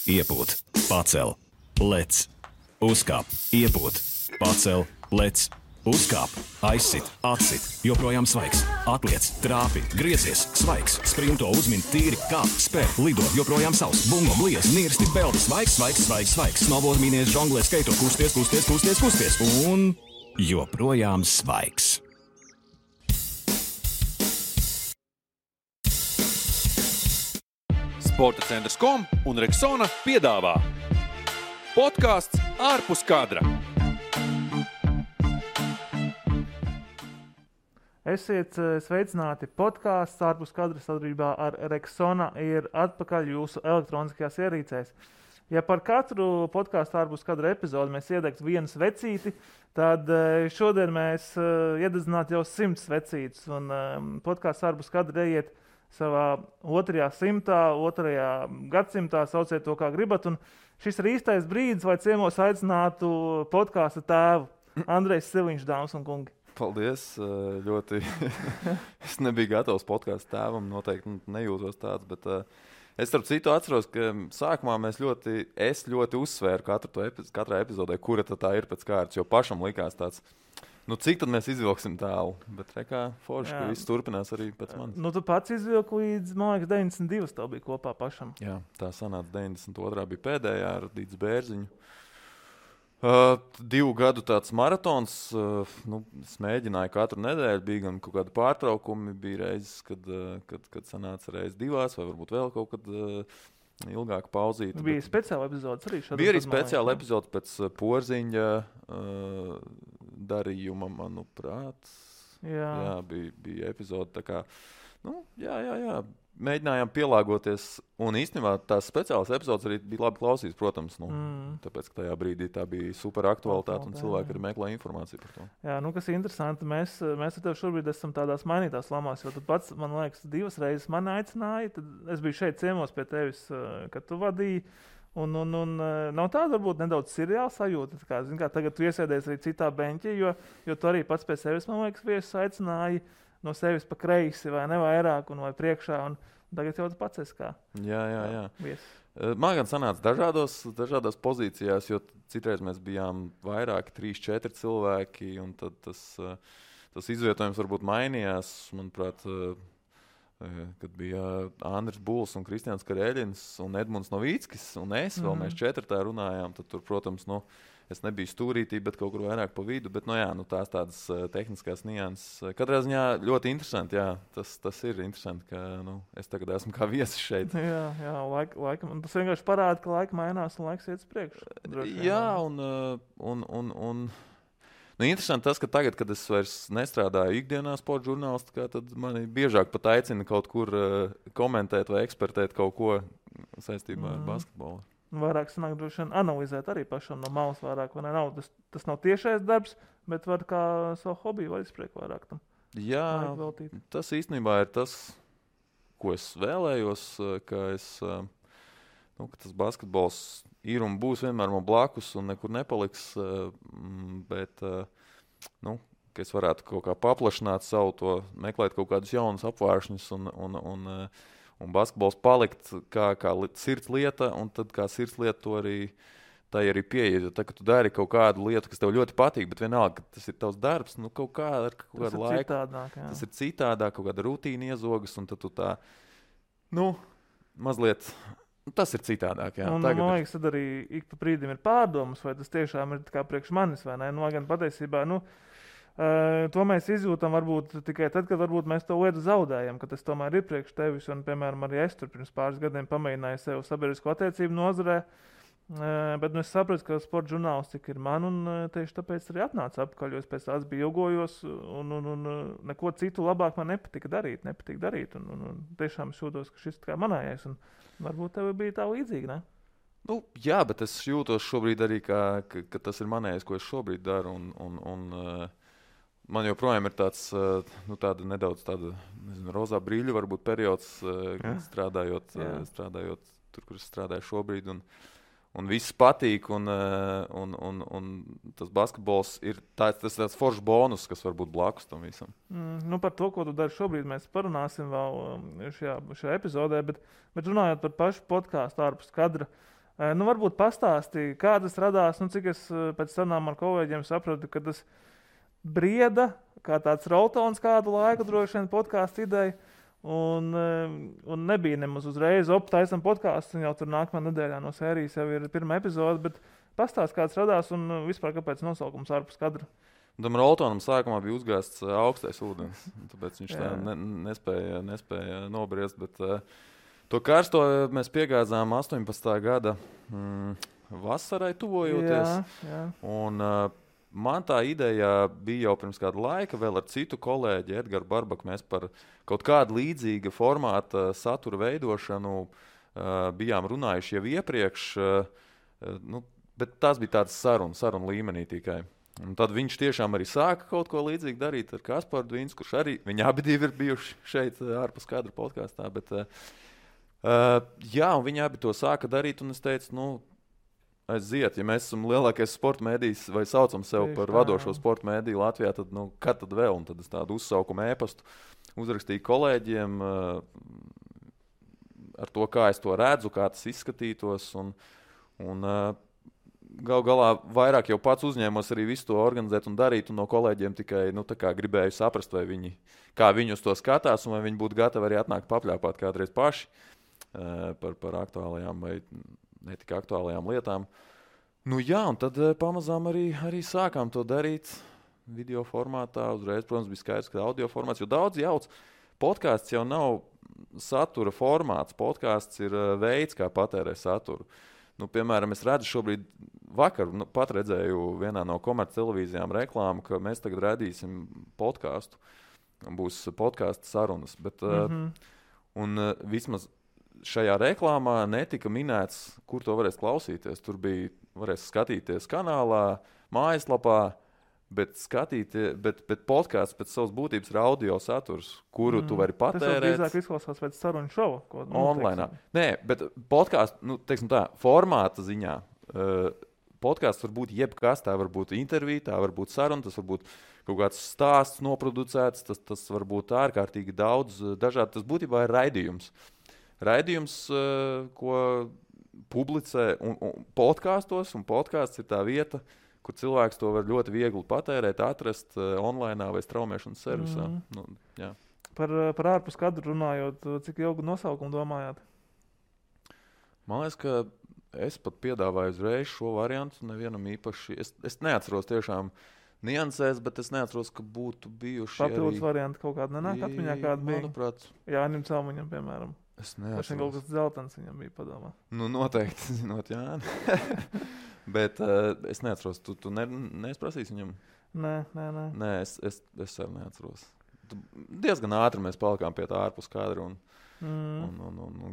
iepūt, pacel, lec, uzkāp, iepūt, pacel, lec, uzkāp, aizsit, atsit, joprojām svaigs, atliec, trāpi, griezies, svaigs, sprinto, uzmin, tīri, kāp, spēr, lido, joprojām savs, bungo, bliez, nirsti, peldi, svaigs, svaigs, svaigs, svaigs, snowboard, mīnies, žonglē, skaito, kusties, kusties, kusties, kusties, un joprojām svaigs. Sporta centrs.com un Rexona piedāvā podcasts ārpus kadra. Esiet sveicināti, podcasts ārpus kadra sadarbībā ar Rexona ir atpakaļ jūsu elektroniskajās ierīcēs. Ja par katru podcastu ārpus kadra epizodu mēs iedegtu vienu svecīti, tad šodien mēs iededzinātu jau 100 svecītes. Un podcasts ārpus kadra ieiet savā 2. gadsimtā, sauciet to kā gribat. Un šis ir īstais brīdis, lai ciemos aicinātu podkāsta tēvu Andrejs Siliņš, dāmas un kungi. Paldies, ļoti. Es nebiju gatavs podkāstu tēvam, noteikti nejūtos tāds, bet es starp citu atceros, ka sākumā es ļoti uzsvēru katrā epizodē, kura tā ir pēc kārtas, jo pašam likās tāds, cik tad mēs izvilksim tālu, bet rekā forši, ka viss turpinās arī pēc manis. Tu pats izvilki līdz, man liekas, 92 tev bija kopā pašam. Jā, tā sanāca 92. bija pēdējā ar Dīts Bērziņu. 2 gadu tāds maratons, es mēģināju katru nedēļu, bija gan kaut kādi pārtraukumi, bija reizes, kad sanāca reiz 2, vai varbūt vēl kaut kad ilgāk pauzīta. Bija speciāla epizodes arī šādā. Bija arī speciāla epizode pēc Porziņa darījuma, manuprāt. Jā, bija epizode tā kā, jā. Mēģinājām pielāgoties, un īstenībā tās speciālas epizodes arī bija labi klausīts, protams, tāpēc, ka tajā brīdī tā bija super aktualitāte, un cilvēki arī meklē informāciju par to. Jā, kas ir interesanti, mēs ar tevi šobrīd esam tādās mainītās lamās, jo tu pats, man liekas, 2 reizes mani aicināji, tad es biju šeit ciemos pie tevis, kad tu vadīji, un nav tāda varbūt nedaudz seriāla sajūta, kā tagad tu iesēdies arī citā beņķī, jo tu arī pats pie sevis, man liekas, viesus aicināji no sevis pa kreisi vai ne vairāk un vai priekšā, un tagad jau tu pats esi kā. Jā. Viesis. Man gan sanāca dažādās pozīcijās, jo citreiz mēs bijām vairāki, 3-4 cilvēki, un tad tas izvietojums varbūt mainījās, manuprāt, kad bija Andris Buls un Kristians Kareļins un Edmunds Novīckis un es, vēl mēs 4 tā runājām, tad tur, protams, es nebiju stūrītī, bet kaut kur vairāk pa vidu, bet tās tādas tehniskās nianses. Katrā ziņā ļoti interesanti, jā, tas ir interesanti, ka es tagad esmu kā viesis šeit. Jā, laikam, un tas vienkārši parāda, ka laika mainās un laiks iet uz priekšu. Jā, un interesanti tas, ka tagad, kad es vairs nestrādāju ikdienā sporta žurnālistikā, tad mani biežāk pat aicina kaut kur komentēt vai ekspertēt kaut ko saistībā ar basketbolu. Vairāk sanāk droši vien analizēt arī pašam no malas vairāk, vai ne? Tas nav tiešais darbs, bet var kā savu hobiju vai izpriek vairāk tam. Jā, tas īstenībā ir tas, ko es vēlējos, ka tas basketbols ir un būs vienmēr man blakus un nekur nepaliks, bet ka es varētu kaut kā paplašināt savu to, meklēt kaut kādus jaunus apvāršņus un basketbols palikt kā sirds lieta, un tad kā sirds lieta to arī pieeja. Tad, kad tu dari kaut kādu lietu, kas tev ļoti patīk, bet vienalga, ka tas ir tavs darbs, kaut kādu laiku. Tas ir citādāk, kaut kāda rutīna iezogas, un tad tu tā, mazliet, tas ir citādāk, jā. Un, man liekas, tad arī ik pa brīdim ir pārdomas, vai tas tiešām ir kā priekš manis, vai ne? Gan patiesībā, to mēs izjūtam varbūt tikai tad, kad varbūt mēs to lietu zaudējam, ka tas tomēr ir priekš tevis. Un, piemēram, arī es tur pirms pāris gadiem pamēģināju sev sabiedrisko attiecību nozarē, bet es sapratu, ka sporta žurnālistika ir man, un tieši tāpēc arī atnāca apakaļ, jo es pēc tās bija ilgojos, un neko citu labāk man nepatika darīt. Un tiešām es jūtos, ka šis kā manējais, un varbūt tev bija tā līdzīgi, ne? Jā, bet es jūtos šobrīd arī, ka tas ir manējais, ko es šobrīd daru, un man joprojām ir tāds, nedaudz tāda, rozā brīļu varbūt periods, strādājot tur, kur es strādāju šobrīd, un viss patīk, un tas basketbols ir tāds foršs bonus, kas var būt blakus tam visam. Par to, ko tu dari šobrīd, mēs parunāsim vēl šajā epizodē, bet runājot par pašu podcastu ārpus kadra, Varbūt pastāstīja, kā tas radās, cik es pēc sarunām ar kolēģiem sapratu, ka tas brieda, kā tāds roltons kādu laiku droši vien podkāstu ideja, un nebija nemaz uzreiz taisam podkāstu, un jau tur nākamā nedēļā no sērijas jau ir pirmā epizode, bet pastāst, kā tas radās un vispār kāpēc nosaukums ārpus kadra. Tam roltonam sākumā bija uzgāsts augstais ūdens, tāpēc viņš tā nespēja nobriest, bet to karsto mēs piegāzām 18. gada vasarai tuvojoties. Jā. Un man tā ideja bija jau pirms kāda laika, vēl ar citu kolēģi Edgaru Barbaku. Mēs par kaut kādu līdzīga formāta satura veidošanu bijām runājuši jau iepriekš, bet tās bija tādas sarunu līmenī tikai. Un tad viņš tiešām arī sāka kaut ko līdzīgu darīt ar Kasparu Dvīns, kurš arī, viņi abi divi ir bijuši šeit ārpus kadra podkāstā, bet un viņi abi to sāka darīt, un es teicu, aiziet, ja mēs esam lielākais sporta mēdījis vai saucam sev par vadošo sporta mēdīju Latvijā, tad, kad tad vēl? Un tad es tādu uzsaukumu ēpastu uzrakstīju kolēģiem ar to, kā es to redzu, kā tas izskatītos, un gal galā vairāk jau pats uzņēmos arī visu to organizēt un darīt, un no kolēģiem tikai gribēju saprast, kā viņi uz to skatās, un vai viņi būtu gatavi arī atnākt papļāpāt kādreiz paši par aktuālajām vai netika aktuālajām lietām. Un tad pamazām arī sākām to darīt video formātā. Uzreiz, protams, bija skaidrs, ka audio formāts, jo daudz jauc. Podkāsts jau nav satura formāts. Podkāsts ir veids, kā patērē saturu. Piemēram, es redzu šobrīd vakar, pat redzēju vienā no komerc televīzijām reklāmu, ka mēs tagad redīsim podkāstu. Būs podkāsta sarunas. Bet, un vismaz šajā reklāmā netika minēts, kur to varēs klausīties. Tur varēs skatīties kanālā, mājaslapā, bet podkāsts pēc savas būtības ir audio saturs, kuru tu vari patērēt. Tas drīzāk izklausās pēc sarunu šova. Online. Nē, bet podkāsts, formāta ziņā. Podkāsts var būt jebkas, tā var būt intervija, tā var būt saruna, tas var būt kaut kāds stāsts noproducēts, tas var būt ārkārtīgi daudz dažādi. Tas būtībā ir raidījums. Raidījums, ko publicē podkāstos, un podkāsts ir tā vieta, kur cilvēks to var ļoti viegli patērēt, atrast online vai straumēšanas servisā. Par ārpus kadru runājot, cik ilgu nosaukumu domājāt? Man liekas, ka es pat piedāvāju uzreiz šo variantu, nevienam īpaši. Es neatceros tiešām niansēs, bet es neatceros, ka būtu bijuši papildus varianti kaut kāda nenāk atmiņā, kāda bija. Manuprāt. Jānim Celmiņam, piemēram. Es neatceros. Vai kaut kas dzeltens viņam bija padomā? Noteikti, zinot Jāni. Bet es neatceros, tu neesprasīsi viņam? Nē, es arī neatceros. Diezgan ātri mēs palikām pie tā ārpus kadra un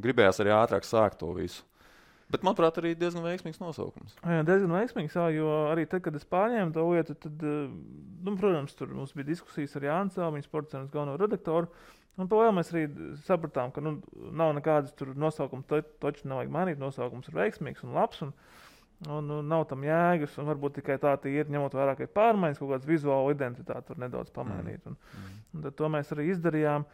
gribējās arī ātrāk sākt to visu. Bet, manuprāt, arī diezgan veiksmīgs nosaukums. Jā, diezgan veiksmīgs, jo arī tad, kad es pārņēmu to lietu, tad, protams, tur mums bija diskusijas ar Jānu Celmiņu, sporta cenas galveno redaktoru, un vēl mēs arī sapratām, ka nav nekādas tur nosaukuma, toči nevajag mainīt, nosaukums ir veiksmīgs un labs, un nav tam jēgas, un varbūt tikai tā ir, ņemot vērā, ka ir pārmaiņas, kaut kāds vizuāla identitāte var nedaudz pamainīt, un tad to mēs arī izdarījām.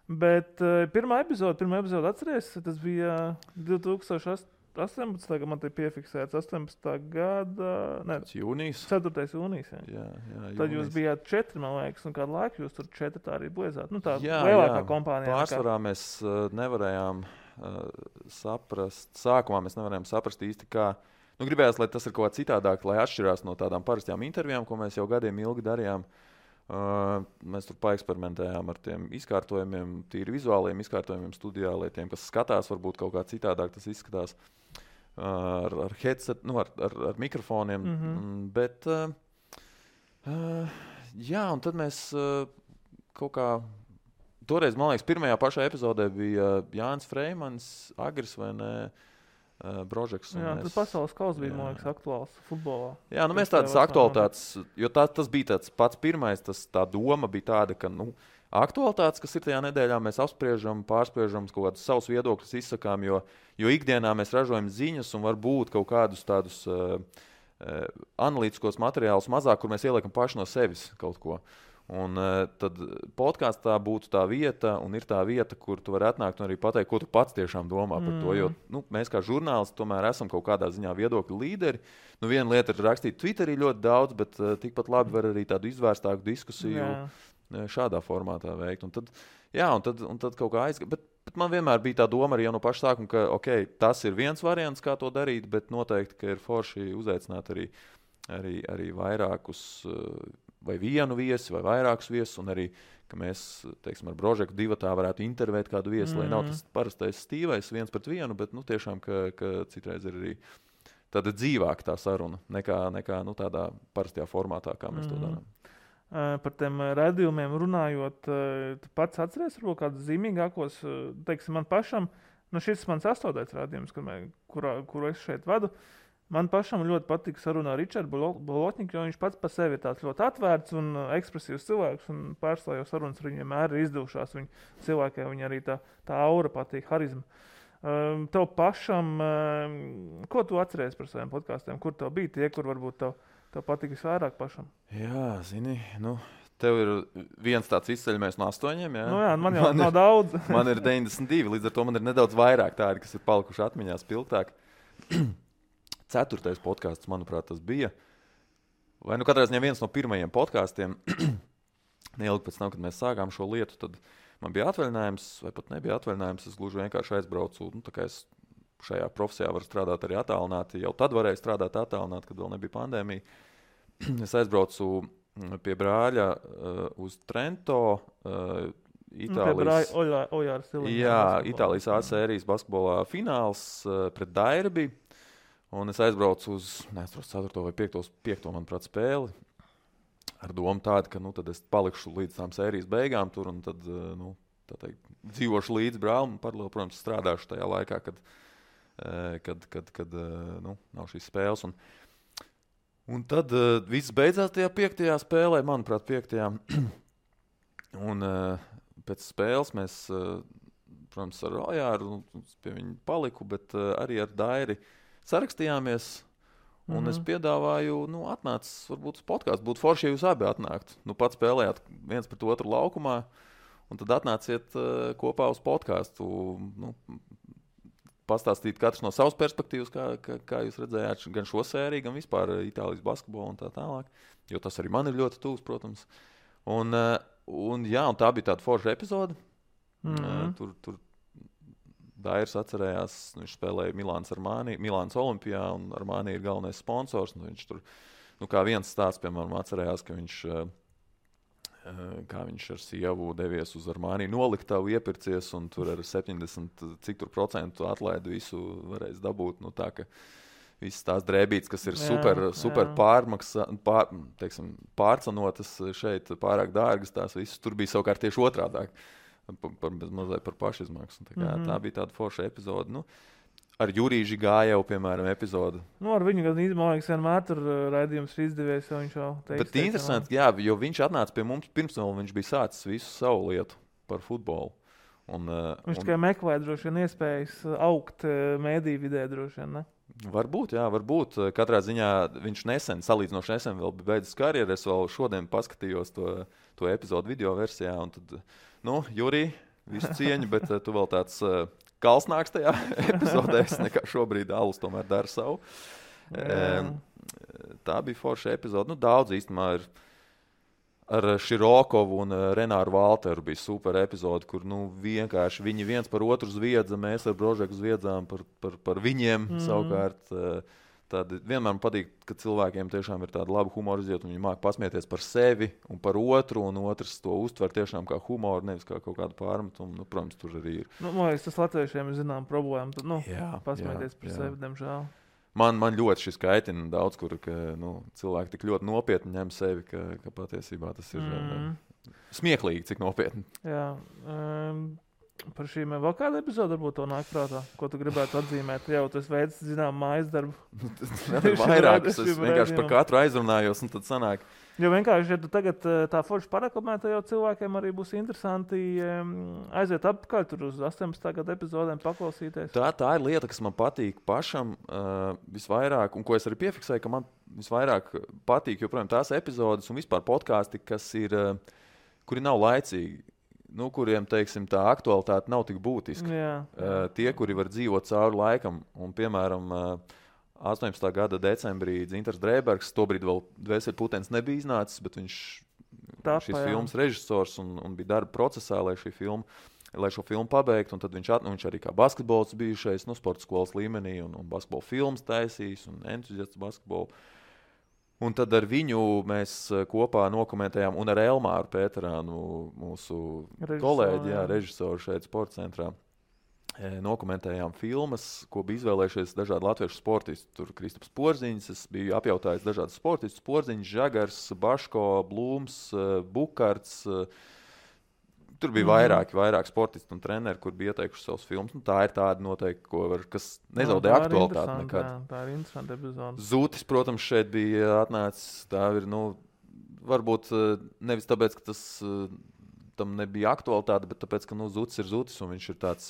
Bet pirmā epizode atceries, tas bija 2018. Man te piefiksēts 18. gada... Jūnijas. 4. jūnijas. Jā, tad jūs bijāt 4, man liekas, un kādu laiku jūs tur 4 tā arī bliezāt. Tā lielākā kompānijā. Pārsvarā mēs nevarējām saprast, sākumā mēs nevarējām saprast īsti, kā... gribējās, lai tas ir kaut kā citādāk, lai atšķirās no tādām parastajām intervijām, ko mēs jau gadiem ilgi darījām. Mēs tur paeksperimentējām ar tiem izkārtojumiem, tīri vizuāliem izkārtojumiem studijā, lai tiem, kas skatās, varbūt kaut kā citādāk tas izskatās ar headset, ar mikrofoniem. Bet, un tad mēs kaut kā, toreiz, man liekas, pirmajā pašā epizodē bija Jānis Freimans, Agris vai ne, Brožeks. Tas pasaules kauss bija, man liekas, aktuāls futbolā. Jā, mēs tādas aktualitātes, jo tas bija tāds pats pirmais, tā doma bija tāda, ka, aktualitātes, kas ir tajā nedēļā, mēs apspriežam, pārspriežam, kaut kādus savus viedokļus izsakām, jo ikdienā mēs ražojam ziņas un varbūt kaut kādus tādus analītiskos materiālus mazāk, kur mēs ieliekam paši no sevis kaut ko. Un tad podkāstā būtu tā vieta, un ir tā vieta, kur tu vari atnākt un arī pateikt, ko tu pats tiešām domā par to. Jo mēs kā žurnālisti tomēr esam kaut kādā ziņā viedokļu līderi. Viena lieta ir rakstīt Twitterī ļoti daudz, bet tikpat labi var arī tādu izvērstāku diskusiju šādā formātā veikt. Un tad kaut kā aizgāja. Bet man vienmēr bija tā doma arī jau no paša sākuma, ka tas ir viens variants, kā to darīt, bet noteikti, ka ir forši uzaicināt arī vairākus vai vienu viesi, vai vairākus viesus, un arī, ka mēs, teiksim, ar Brožeku divatā varētu intervēt kādu viesi, lai nav tas parastais stīvais 1-1, bet, tiešām, ka citreiz ir arī tāda dzīvāka tā saruna, nekā tādā parastajā formātā, kā mēs to darām. Par tiem raidījumiem runājot, tu pats atceries varbūt kādus zīmīgākos, teiksim, man pašam, šis mans 8. raidījums, kuru es šeit vadu, man pašam ļoti patīk saruna ar Ričardu Bolotņiku, jo viņš pats par sevi ir tāds ļoti atvērts un ekspresīvs cilvēks, un pārstāv jau sarunas ar viņu vienmēr ir izdevušās. Cilvēkiem viņa arī tā aura patīk, harizma. Tev pašam, ko tu atceries par saviem podkāstiem? Kur tev bija tie, kur varbūt tev patīk visvairāk pašam? Jā, zini, tev ir viens tāds izceļamais no 8, jā? Jā, man jau nav daudz. Man ir 92, līdz ar to man ir nedaudz vairāk tādi, kas ir palikuši atmiņā spilgtāk. 4. podkāsts, manuprāt, tas bija. Vai katrā ziņā viens no pirmajiem podkāstiem. Neilgi pēc tam, kad mēs sākām šo lietu, tad man bija atvaļinājums, vai pat nebija atvaļinājums. Es gluži vienkārši aizbraucu. Tā kā es šajā profesijā varu strādāt arī attālināti. Jau tad varēju strādāt attālināti, kad vēl nebija pandēmija. Es aizbraucu pie brāļa uz Trento, Itālijas. Itālijas A sērijas basketbolā fināls pret Dairbi. Un es aizbraucu uz 4. vai 5. manuprāt, spēli ar domu tādu, ka tad es palikšu līdz tām sērijas beigām tur un tad dzīvošu līdz brālim un paralēli, protams, strādāšu tajā laikā, kad nav šīs spēles. Un tad viss beidzās tajā 5. spēlē, manuprāt, 5. Un pēc spēles mēs, protams, ar Ojāru pie viņa paliku, bet arī ar Dairi sarakstījāmies, un es piedāvāju, atnācis varbūt uz podkāstu. Būtu forši, ja jūs abi atnāktu. Pats spēlējāt viens pret otru laukumā, un tad atnāciet kopā uz podkāstu. Pastāstīt katrs no savas perspektīvas, kā jūs redzējāt gan šo sēriju, gan vispār Itālijas basketbolu un tā tālāk. Jo tas arī man ir ļoti tuvs, protams. Un tā bija tāda forša epizode. Tur Dairis atcerējās, viņš spēlēja Milānas Olimpijā, un Armani ir galvenais sponsors. Viņš tur, kā viens stāsts, piemēram, atcerējās, ka viņš ar sievu devies uz Armani noliktavu iepircies, un tur ar 70% atlaidi visu varēs dabūt. Tā, ka visas tās drēbītes, kas ir super pārcenotas šeit, pārāk dārgas, tās visas tur bija savukārt tieši otrādāk. Mazliet par pašizmaksu. Tā bija tāda forša epizode. Ar Jurīži gāja jau, piemēram, epizode. Ar viņu gan izmaiņas vienmēr tur raidījums ir izdevies, jo viņš jau teiks. Bet interesanti, jo viņš atnāca pie mums pirms vēl viņš bija sācis visu savu lietu par futbolu. Viņš tikai meklē droši vien iespējas augt mēdīju vidē droši vien, ne? Varbūt. Katrā ziņā viņš salīdzinoši nesen vēl bija beidzis karjeru. Es vēl šodien paskatījos to epizodu video versijā, un tad, Jurī, visu cieņu, bet tu vēl tāds kalsnāks tajā epizodē, nekā šobrīd Alus tomēr dara savu. Tā bija forša epizode. Daudz īstenībā ir ar Širokovu un Renāru Valteru bija super epizode, kur vienkārši viņi viens par otru zviedza, mēs ar Brožeku zviedzām par viņiem savukārt. Vienmēr man patīk, ka cilvēkiem tiešām ir tāda laba humora izjūta, un viņi māk pasmieties par sevi un par otru, un otrs to uztver tiešām kā humoru, nevis kā kaut kādu pārmetumu. Protams, tur arī ir. Man liekas, tas latviešiem ir zinām problēma. Pasmieties par sevi, diemžēl. Man ļoti šis kaitina daudz, kur cilvēki tik ļoti nopietni ņem sevi, ka patiesībā tas ir smieklīgi, cik nopietni. Jā. Par šīm vēl kāda epizode varbūt to nāk prātā, ko tu gribētu atzīmēt. Jau tas veids, zinām, mājas darbu. Vairākus, es vienkārši par katru aizrunājos, un tad sanāk. Jo vienkārši, ja tu tagad tā forši parekomētu, jau cilvēkiem arī būs interesanti aiziet apkārt tur uz 18. gada epizodēm paklausīties. Tā ir lieta, kas man patīk pašam visvairāk, un ko es arī piefiksēju, ka man visvairāk patīk joprojām tās epizodes un vispār podkāsti, kuri nav laicīgi. Kuriem, teiksim, tā aktualitāte nav tik būtiska. Jā. Tie, kuri var dzīvot cauri laikam, un, piemēram, 18. gada decembrī Dzintars Drēbergs, tobrīd vēl Dvēseli Putens nebija iznācis, bet viņš šis filmas režisors un bija darba procesā, lai šo filmu pabeigtu, un tad viņš arī kā basketbols bijušais, sporta skolas līmenī, un basketbola filmas taisījis, un entuziasts basketbolu. Un tad ar viņu mēs kopā nokomentējām, un ar Elmāru Pēterānu, mūsu kolēģi, režisoru šeit sporta centrā, nokomentējām filmas, ko bija izvēlējušies dažādi latviešu sportisti. Tur Kristaps Porziņš, es biju apjautājis dažādus sportistus, Porziņš, Žagars, Baško, Blūms, Bukarts. Tur bija vairāk sportisti un treneri, kur bija ieteikuši savus filmas. Tā ir tāda noteikti, kas nezaudē aktualitāti nekad. Tā ir interesanta epizode. Zūtis, protams, šeit bija atnācis. Tā ir, varbūt nevis tāpēc, ka tam nebija aktualitāte, bet tāpēc, ka Zūtis ir Zūtis, un viņš ir tāds,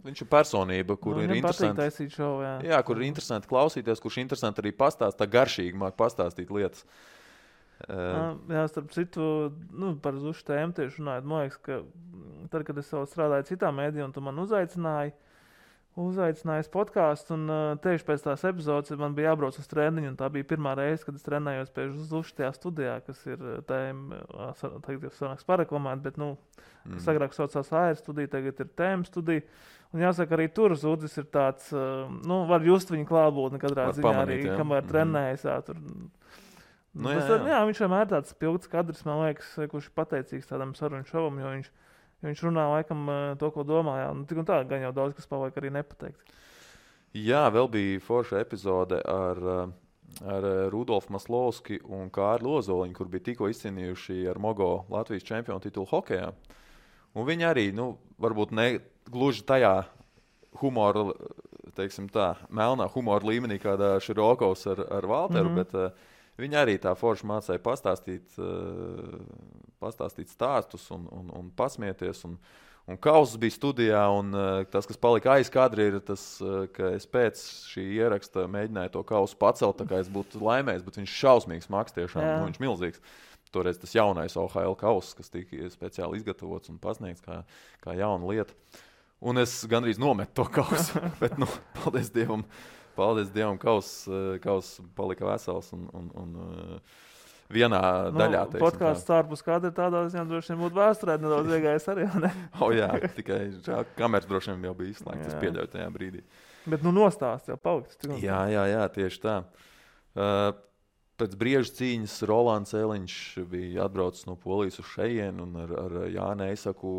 viņš ir personība, kur ir interesanti. Jā, kur ir interesanti klausīties, kurš interesanti arī pastāst, tā garšīgi māk pastāstīt lietas. Jā, starp citu, par Zušu tēmu tieši runājot, man liekas, ka tad, kad es vēl strādāju citā mēdījā, un tu man uzaicinājis podkāstu, un tieši pēc tās epizodes man bija jābrauc uz treniņu, un tā bija pirmā reize, kad es trenējos pie Zušu tajā studijā, kas ir tagad jau sanāks pareklamēt, bet, kas agrāk saucās AR studija, tagad ir tēma studija. Un jāsaka, arī tur Zudis ir tāds, var just viņa klātbūtni katrā ziņā arī, kamēr trenējas, tur. Jā, viņš vienmēr tāds pilgts kadrs, man liekas, kurš ir pateicīgs tādam sarunu šovam, jo viņš runā laikam to, ko domāja. Tik un tā, gan jau daudz, kas paliek arī nepateikt. Jā, vēl bija forša epizode ar Rudolfu Maslovski un Kārli Ozoliņu, kur bija tikko izcīnījuši ar Mogo Latvijas čempionu titulu hokejā. Un viņi arī, varbūt ne gluži tajā humora, teiksim tā, melnā humora līmenī, kādā Širokovs ar Valteru, bet viņi arī tā forši mācīja pastāstīt stāstus un pasmieties. Un Kauss bija studijā, un tas, kas palika aiz kadra, ir tas, ka es pēc šī ieraksta mēģināju to Kausu pacelt, tā kā es būtu laimējis, bet viņš šausmīgs maks tiešām, viņš milzīgs. Toreiz tas jaunais OHL Kauss, kas tika speciāli izgatavots un pasniegts kā jauna lieta. Un es gandrīz nometu to Kausu, bet, Paldies Dievam, Kauss palika vesels un vienā daļā. Podkāsts ārpus kadra tādā ziņā droši vien būtu vēsturē nedaudz iegājis arī, ne? Jā, tikai kameras droši vien jau bija izslēgts, es pieļauju tajā brīdī. Bet nostāsts jau paliks. Jā, tieši tā. Pēc brieža cīņas Rolands Eliņš bija atbraucis no Polijas uz šejien un ar Jāni Eisaku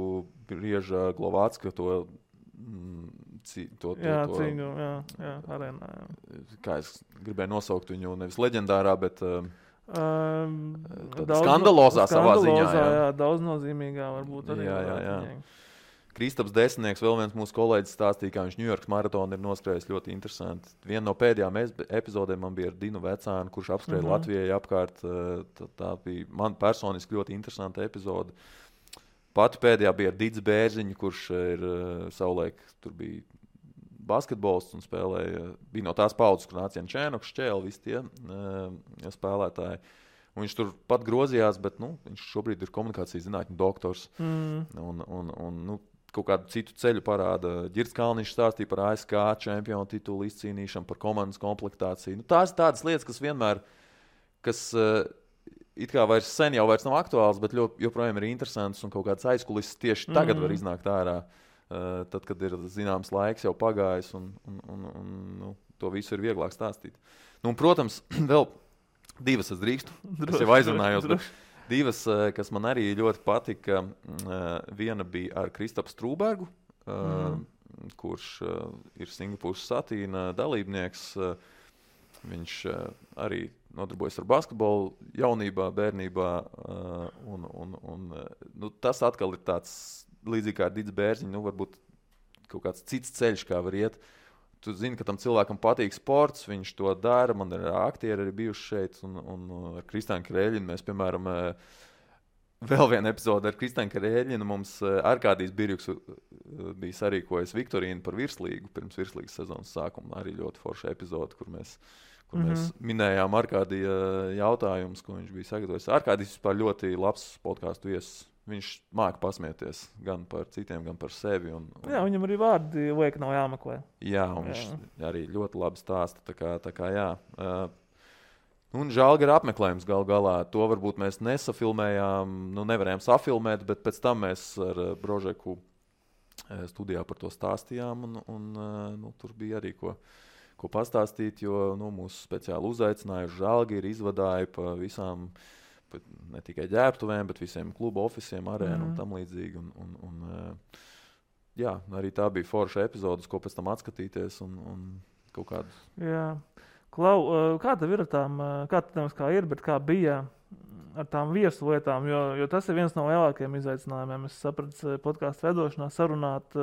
brieža Glovācka cīņu, arēnā. Kā es gribēju nosaukt viņu nevis leģendārā, bet skandalozā savā ziņā. Jā, daudznozīmīgā varbūt arī. Jā. Kristaps Desnieks, vēl viens mūsu kolēģis stāstīja, kā viņš Ņujorkas maratonu ir noskrējis ļoti interesanti. Viena no pēdējām epizodēm man bija ar Dinu Vecānu, kurš apskrēja Latvijai apkārt. Tā bija man personiski ļoti interesanta epizode. Pati pēdējā bija ar Dits Bērziņu, kurš ir savulaik tur bija basketbolists un bija no tās paudzes, kur nāca Jančēnoks, Šķēli, visi tie spēlētāji. Un viņš tur pat grozījās, bet viņš šobrīd ir komunikācijas zinātņu doktors. Un kaut kādu citu ceļu parāda. Ģirds Kalniņš stāstīja par ASK čempionu titulu izcīnīšanu, par komandas komplektāciju. Tās ir tādas lietas, kas vienmēr, it kā sen jau vairs nav aktuāls, bet joprojām ir interesants un kaut kāds aizkulises tieši tagad var iznākt ārā. Tad, kad ir zināms laiks jau pagājis un to visu ir vieglāk stāstīt. Protams, vēl divas es drīkstu. Es jau aizrunājos, bet divas, kas man arī ļoti patika. Viena bija ar Kristapu Strūbergu, kurš ir Singapūras Satīna dalībnieks. Viņš arī nodarbojas ar basketbolu jaunībā, bērnībā. Tas atkal ir tāds līdzīgi kā ar Dits Bērziņu, nu, varbūt kaut kāds cits ceļš, kā var iet. Tu zini, ka tam cilvēkam patīk sports, viņš to dara. Man ir aktieri arī bijuši šeit, un ar Kristānu Kreļinu mēs, piemēram, vēl viena epizode ar Kristānu Kreļinu. Mums Arkādijs Birjuks bija sarīkojis Viktorīnu par virslīgu pirms virslīgas sezonas sākuma. Arī ļoti forša epizode, kur mēs minējām Arkādija jautājumus, ko viņš bija sagatavojis. Arkādijs vispār ļoti labs podcastu viesis. Viņš māca pasmieties gan par citiem, gan par sevi. Jā, viņam arī vārdi liek nav jāmeklē. Jā, un viņš arī ļoti labi stāsta. Tā kā jā. Un Žalgara apmeklējums gal galā. To varbūt mēs nesafilmējām, nevarējām safilmēt, bet pēc tam mēs ar Brožeku studijā par to stāstījām. Un tur bija arī ko pastāstīt, jo mūsu speciāli uzaicināja Žalgiri, izvadāja pa visām ne tikai ģērbtuvēm, bet visiem klubu ofisiem, arēnu un tam līdzīgi. Jā, arī tā bija forša epizodes, ko pēc tam atskatīties un kaut kādu. Jā. Klau, kā tev ir ar tām, kā ir, bet kā bija ar tām viesu lietām, jo tas ir viens no lielākajiem izaicinājumiem. Es sapratu podcastu vedošanā sarunāt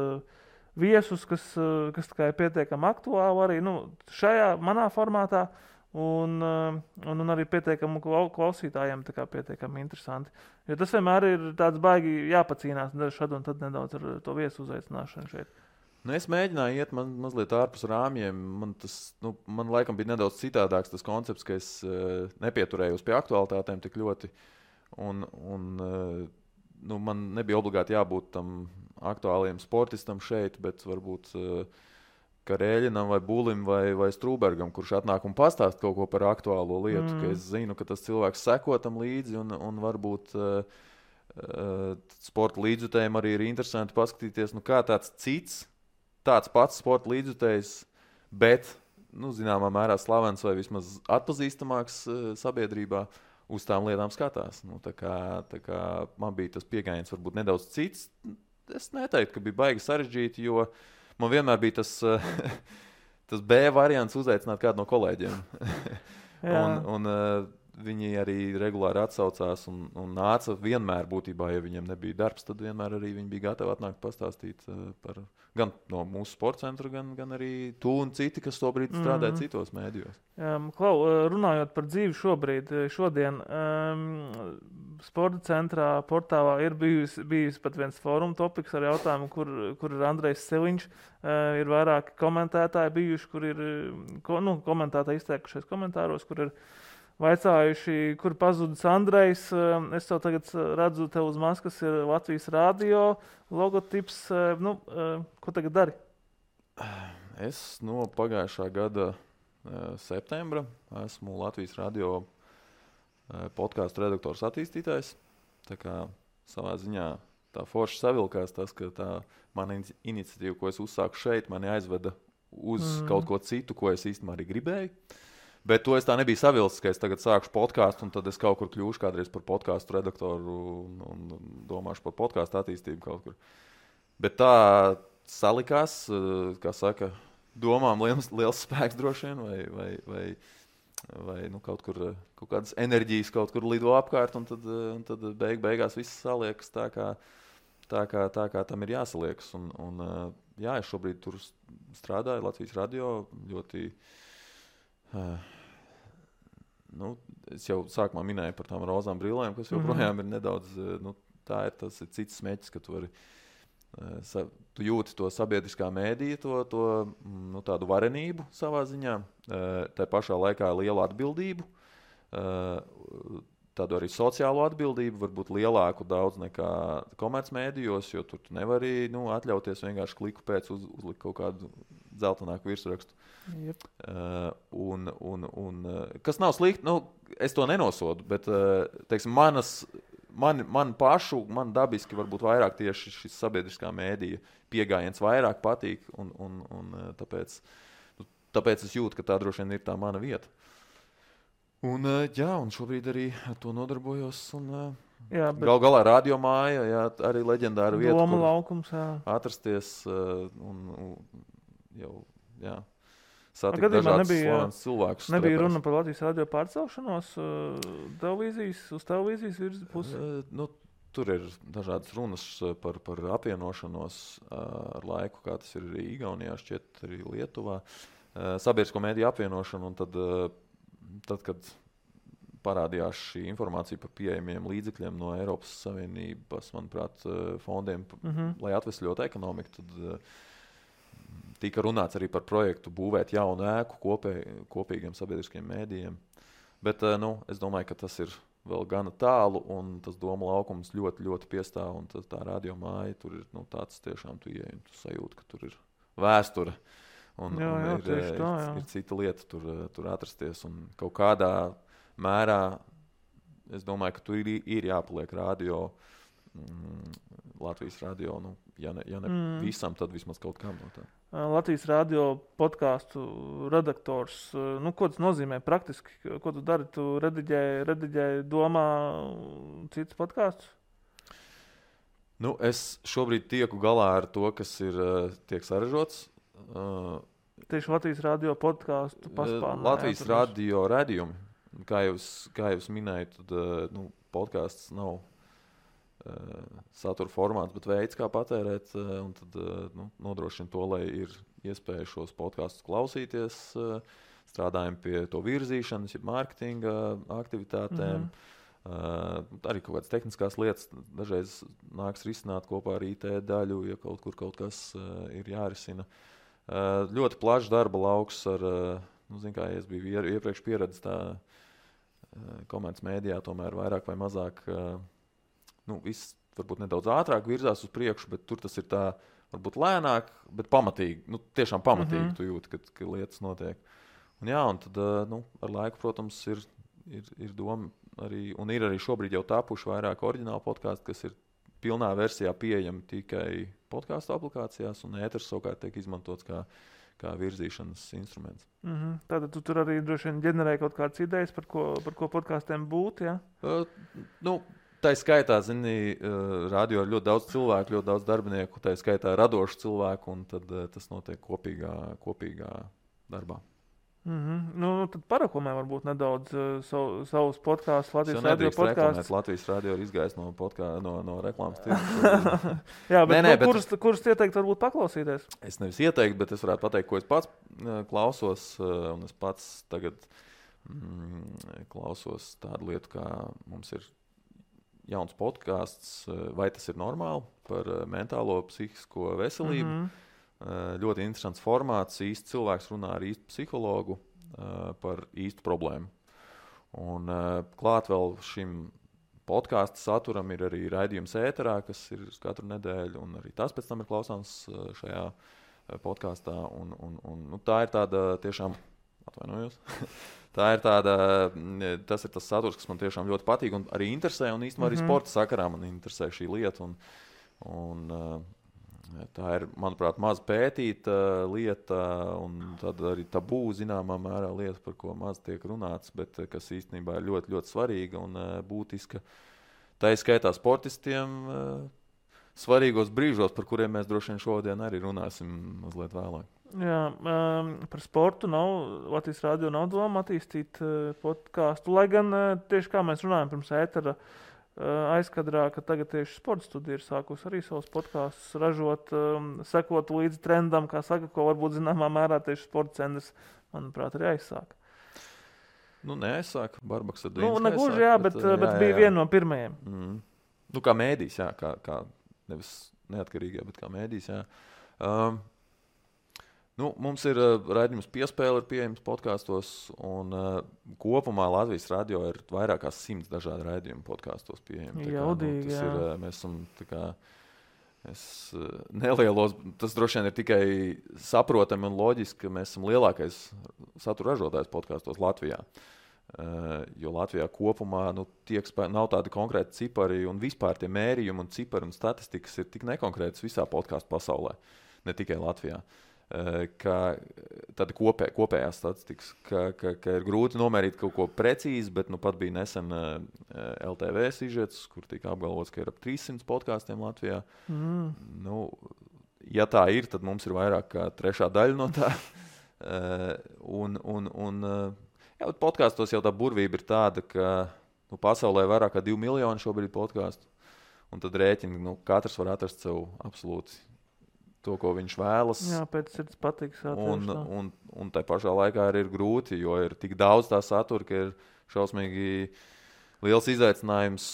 viesus, kas tā kā ir pietiekami aktuāli arī šajā manā formātā. Un arī pietiekami klausītājiem tā kā pietiekami interesanti. Jo tas vienmēr ir tāds baigi jāpacīnās šad un tad nedaudz ar to viesu uzaicināšanu šeit. Es mēģināju iet mazliet ārpus rāmjiem. Man laikam bija nedaudz citādāks tas koncepts, ka es nepieturējos pie aktualitātēm tik ļoti. Man nebija obligāti jābūt tam aktuāliem sportistam šeit, bet varbūt Karēļinam vai Bulim vai Strūbergam, kurš atnāk un pastāst kaut ko par aktuālo lietu, ka es zinu, ka tas cilvēks seko tam līdzi un varbūt sporta līdzjutējiem arī ir interesanti paskatīties, kā tāds pats sporta līdzjutējs, bet, zināmā mērā slavens vai vismaz atpazīstamāks sabiedrībā uz tām lietām skatās. Tā kā man bija tas pieejams varbūt nedaudz cits. Es neteiktu, ka bija baigi sarežģīti, jo man vienmēr bija tas B variants uzaicināt kādu no kolēģiem. un viņi arī regulāri atsaucās un nāca vienmēr būtībā, ja viņiem nebija darbs, tad vienmēr arī viņi bija gatavi atnākt pastāstīt par gan no mūsu sporta centra, gan arī tu un citi, kas tobrīd strādāja citos mēdījos. Klau, runājot par dzīvi šodien, sporta centrā portālā ir bijis pat viens fóruma topiks ar jautājumu, kur ir Andrejs Seliņš, ir vairāki komentētāji bijuši, kur ir komentētāji izteikušies komentāros, kur ir vaicājuši, kur pazudis Andrejs. Es tev tagad redzu, tev uz maskas ir Latvijas radio logotips. Ko tagad dari? Es no pagājušā gada septembra esmu Latvijas radio podcastu redaktors attīstītājs. Tā kā savā ziņā tā forši savilkās tas, ka tā mana iniciatīva, ko es uzsāku šeit, mani aizveda uz kaut ko citu, ko es īstenībā arī gribēju. Bet to es tā nebiju savilcis, ka es tagad sākšu podcastu un tad es kaut kur kļūšu kādreiz par podcastu redaktoru un domāšu par podcastu attīstību kaut kur. Bet tā salikās, kā saka, domām liels spēks droši vien vai kaut kādas enerģijas kaut kur lido apkārt un tad beigās viss saliekas tā kā tam ir jāsaliekas. Jā, es šobrīd tur strādāju Latvijas radio ļoti. Es jau sākumā minēju par tām rozām brillēm, kas joprojām ir nedaudz, tas ir cits smēķis, ka tu jūti to sabiedriskā mēdīja, tādu varenību savā ziņā, tā pašā laikā lielu atbildību, tādu arī sociālo atbildību, varbūt lielāku daudz nekā komercmēdījos, jo tur tu nevari atļauties vienkārši kliku pēc uzlikt kaut kādu dzeltenāku virsrakstu. Yep. Kas nav slikti, es to nenosodu, bet teiksim, man dabiski varbūt vairāk tieši šis sabiedriskā mēdīja piegājiens vairāk patīk, un tāpēc es jūtu, ka tā droši vien ir tā mana vieta. Un šobrīd arī ar to nodarbojos. Gal galā radio māja, arī leģendāra vieta, Doma laukums, atrasties satikt dažādas slavenas cilvēkus. Nebija runa par Latvijas radio pārcelšanos uz televīzijas pusi? tur ir dažādas runas par apvienošanos ar laiku, kā tas ir arī Igaunijā, šķiet arī Lietuvā. Sabiedrisko mediju apvienošanu, un tad, kad parādījās šī informācija par pieejamiem līdzekļiem no Eiropas Savienības, manuprāt, fondiem, lai atvesļotu ekonomiku, tad tika runāts arī par projektu būvēt jaunu ēku kopīgiem sabiedriskiem mēdījiem. Bet es domāju, ka tas ir vēl gana tālu, un tas doma laukums ļoti, ļoti piestāv, un tā radio māja tur ir tāds tiešām tu ieej, un tu sajūti, ka tur ir vēsture, un ir cita lieta tur atrasties, un kaut kādā mērā, es domāju, ka tur ir jāpaliek radio, Latvijas radio, ja ne visam, tad vismaz kaut kam no tā. Latvijas radio podcastu redaktors, ko tas nozīmē praktiski? Ko tu dari? Tu rediģēji domā citus podkastus? Es šobrīd tieku galā ar to, kas tiek saražots. Tieši Latvijas radio podcastu paspārnē. Latvijas radio radījumi. Kā jūs minējat, tad podcasts nav satura formāts, bet veids, kā patērēt, un tad nodrošina to, lai ir iespēja šos podkastus klausīties, strādājam pie to virzīšanas, mārketinga aktivitātēm, arī kaut kādas tehniskās lietas, dažreiz nāks risināt kopā ar IT daļu, ja kaut kas ir jārisina. Ļoti plašs darba lauks ar, kā es biju iepriekš pieredzis tā komerces mēdījā, tomēr vairāk vai mazāk viss varbūt nedaudz ātrāk virzās uz priekšu, bet tur tas ir tā varbūt lēnāk, bet pamatīgi, tiešām pamatīgi tu jūti, ka lietas notiek. Un tad ar laiku, protams, ir doma arī, un ir arī šobrīd jau tapuši vairāk oriģināli podkāsti, kas ir pilnā versijā pieejami tikai podkāstu aplikācijās, un ēters savukārt tiek izmantots kā virzīšanas instruments. Tātad tu tur arī droši vien ģenerēji kaut kādas idejas, par ko podkāstiem būtu, ja? Tā skaitā, radio ir ļoti daudz cilvēku, ļoti daudz darbinieku, tā skaitā radošu cilvēku, un tad tas notiek kopīgā darbā. Tad paraklamē varbūt nedaudz savus podkāstus, Latvijas radio podkāstus. Latvijas radio ir izgājis no reklāmas tirgus. Jā, bet kurus ieteikt varbūt paklausīties? Es nevis ieteiktu, bet es varētu pateikt, ko es pats klausos, un es pats tagad klausos tādu lietu, kā mums ir jauns podkāsts, vai tas ir normāli, par mentālo psihisko veselību. Ļoti interesants formāts, īsts cilvēks runā ar īstu psihologu par īstu problēmu. Un klāt vēl šim podkāstu saturam ir arī raidījums ēterā, kas ir katru nedēļu, un arī tas pēc tam ir klausāms šajā podkāstā. Un tā ir tāda tiešām, atvainojos, tas ir tas saturs, kas man tiešām ļoti patīk un arī interesē, un īstenībā arī sporta sakarā man interesē šī lieta. Un tā ir, manuprāt, maz pētīta lieta, un tad arī tabū zināmā mērā lieta, par ko maz tiek runāts, bet kas īstenībā ir ļoti, ļoti svarīga un būtiska. Tā izskaitā sportistiem svarīgos brīžos, par kuriem mēs droši vien šodien arī runāsim mazliet vēlāk. Jā, par sportu Latvijas radio nav doma attīstīt podkāstu, lai gan tieši kā mēs runājam pirms ētera aizkadrā, ka tagad tieši sporta studija ir sākusi arī savus podkāstus ražot, sekot līdzi trendam, kā saka, ko varbūt zināmā mērā tieši sporta centrs, manuprāt, arī aizsāka. Neaizsāka, Barbaks ar Dīnas negluži, jā, bet bija viena no pirmajiem. Kā mēdījis, jā, kā nevis neatkarīgā, bet kā mēdījis, jā. Mums ir raidījums Piespēle ir pieejams podkāstos, un kopumā Latvijas radio ir vairāk kā 100 dažādi raidījumi podkāstos pieejami. Jaudīgi, jā. Mēs esam nelielos, tas droši vien ir tikai saprotami un loģiski, ka mēs esam lielākais satura ražotājs podkāstos Latvijā. Jo Latvijā kopumā nav tādi konkrēti cipari, un vispār tie mērījumi un cipari un statistikas ir tik nekonkrētas visā podkāstu pasaulē, ne tikai Latvijā. Tāda kopējā statistikas, ka ir grūti nomērīt kaut ko precīzi, bet pat bija nesen LTV sižets, kur tika apgalvots, ka ir ap 300 podkāstiem Latvijā. Ja tā ir, tad mums ir vairāk kā trešā daļa no tā. Bet podkāstos jau tā burvība ir tāda, ka pasaulē vairāk kā 2 miljoni šobrīd podkāstu. un tad rēķini, katrs var atrast sev absolūti to, ko viņš vēlas. Jā, pēc sirds patiks. Un tai pašā laikā arī ir grūti, jo ir tik daudz tā satura, ka ir šausmīgi liels izaicinājums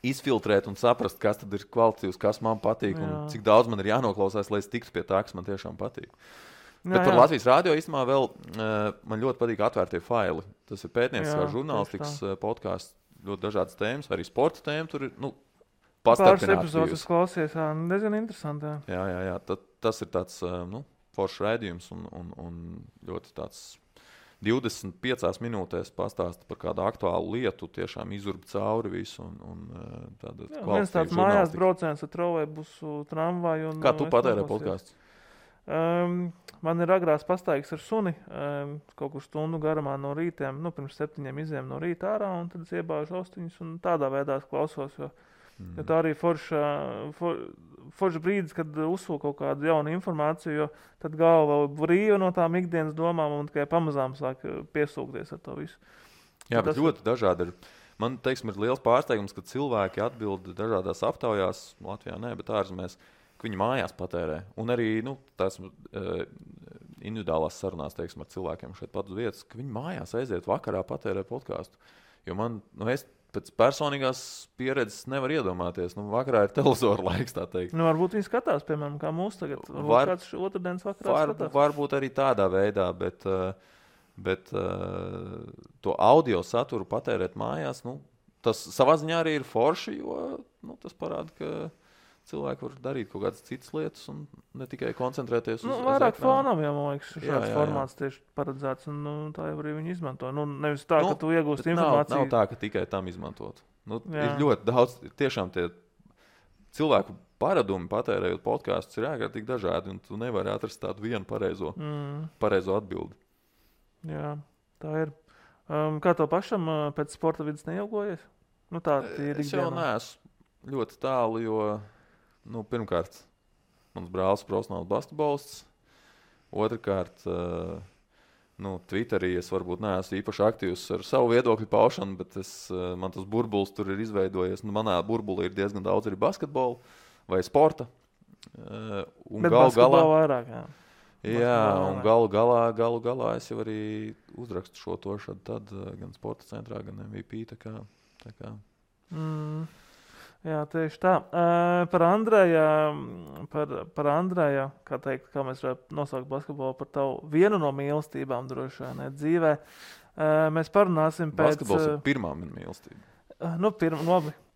izfiltrēt un saprast, kas tad ir kvalitatīvs, kas man patīk un cik daudz man ir jānoklausās, lai es tiktu pie tā, kas man tiešām patīk. Bet par Latvijas radio īstenībā vēl man ļoti patīk atvērtie faili. Tas ir pētnieciskā žurnālistikas podcasts, ļoti dažādas tēmas, arī sporta tēma tur ir, pāris epizodes klausies, diezgan interesanti. Jā. Tas ir tāds, foršs raidījums un ļoti tāds 25 minūtēs pastāsta par kādu aktuālu lietu, tiešām izurba cauri visu un tāda kvalitatīva viens tāds mājās brauciens ar trolejbusu, tramvaju. Kā tu patērē podcasts? Man ir agrās pastaigas ar suni, kaut kur stundu garumā no rītiem, pirms 7 izējām no rīta ārā, un tad es iebāžu austiņus un tādā veidā klausos, jo tā arī forša brīdis, kad uzsūl kaut kādu jaunu informāciju, jo tad galva brīva no tām ikdienas domām un tikai pamazām sāk piesūkties ar to visu. Jā, bet ļoti dažādi ir. Man, teiksim, ir liels pārsteigums, ka cilvēki atbild dažādās aptaujās, Latvijā nē, bet ārzemēs, ka viņi mājās patērē. Un arī, tās individuālās sarunās, teiksim, ar cilvēkiem šeit pat uz vietas, ka viņi mājās aiziet vakarā patērē podcastu. Jo man, es pēc personīgās pieredzes nevar iedomāties. Vakarā ir televizora laiks, tā teikt. Varbūt viņi skatās, piemēram, kā mūs tagad. Varbūt kāds otrdienas vakarā skatās. Varbūt arī tādā veidā, bet to audio saturu patērēt mājās, tas savā ziņā arī ir forši, jo tas parāda, ka cilvēki var darīt kaut kādas citas lietas un ne tikai koncentrēties uz vairāk fonam, man liekas, šāds formāts tieši paredzēts, un tā jau arī viņi izmanto. Nevis tā, ka tu iegūsti informāciju. Nav tā, ka tikai tam izmantot. Ir ļoti daudz, tiešām tie cilvēku paradumi patērējot podkastus ir ārkārtīgi dažādi, un tu nevari atrast tādu vienu pareizo atbildi. Jā, tā ir. Kā to pašam pēc sporta vidas neilgojies? Tā ir es jau neesmu ļoti tālu, jo pirmkārt, mans brālis profesionāls basketbolists. Otrakārt, Twitterī es varbūt neesmu īpaši aktīvs ar savu viedokļu paušanu, bet man tas burbulis tur ir izveidojies. Manā burbulī ir diezgan daudz arī basketbola vai sporta. Bet basketbola vairāk, jā. Jā, un galu galā es jau arī uzrakstu šo to tad gan sporta centrā, gan MVP. Tā kā. Jā, tieši tā. Par Andreju, kā mēs varētu nosaukt basketbolu par tavu vienu no mīlestībām droši vien dzīvē. Mēs parunāsim pēc... Basketbols ir pirmā mana mīlestība.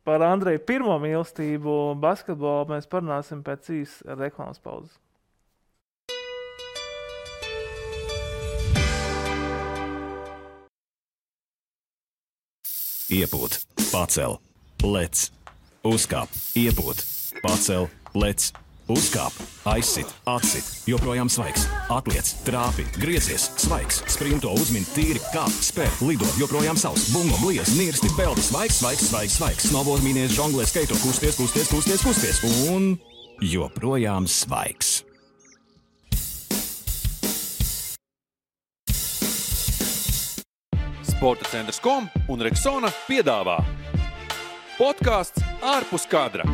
Par Andreju pirmo mīlestību basketbolu mēs parunāsim pēc īsas reklāmas pauzes. Iepūt, pacel, lec. Uzkāp, iepūt, pacel, lec, uzkāp, aizsit, atsit, joprojām svaigs, atliec, trāpi, griezies, svaigs, sprinto, uzmin, tīri, kāp, spēr, lido, joprojām savs, bungo, bliez, nirsti, peldi, svaigs, snowboard, mīnies, žonglē, skaito, kusties, un joprojām svaigs. Sporta centrs.com un Rexona piedāvā podcasts ārpus kadra.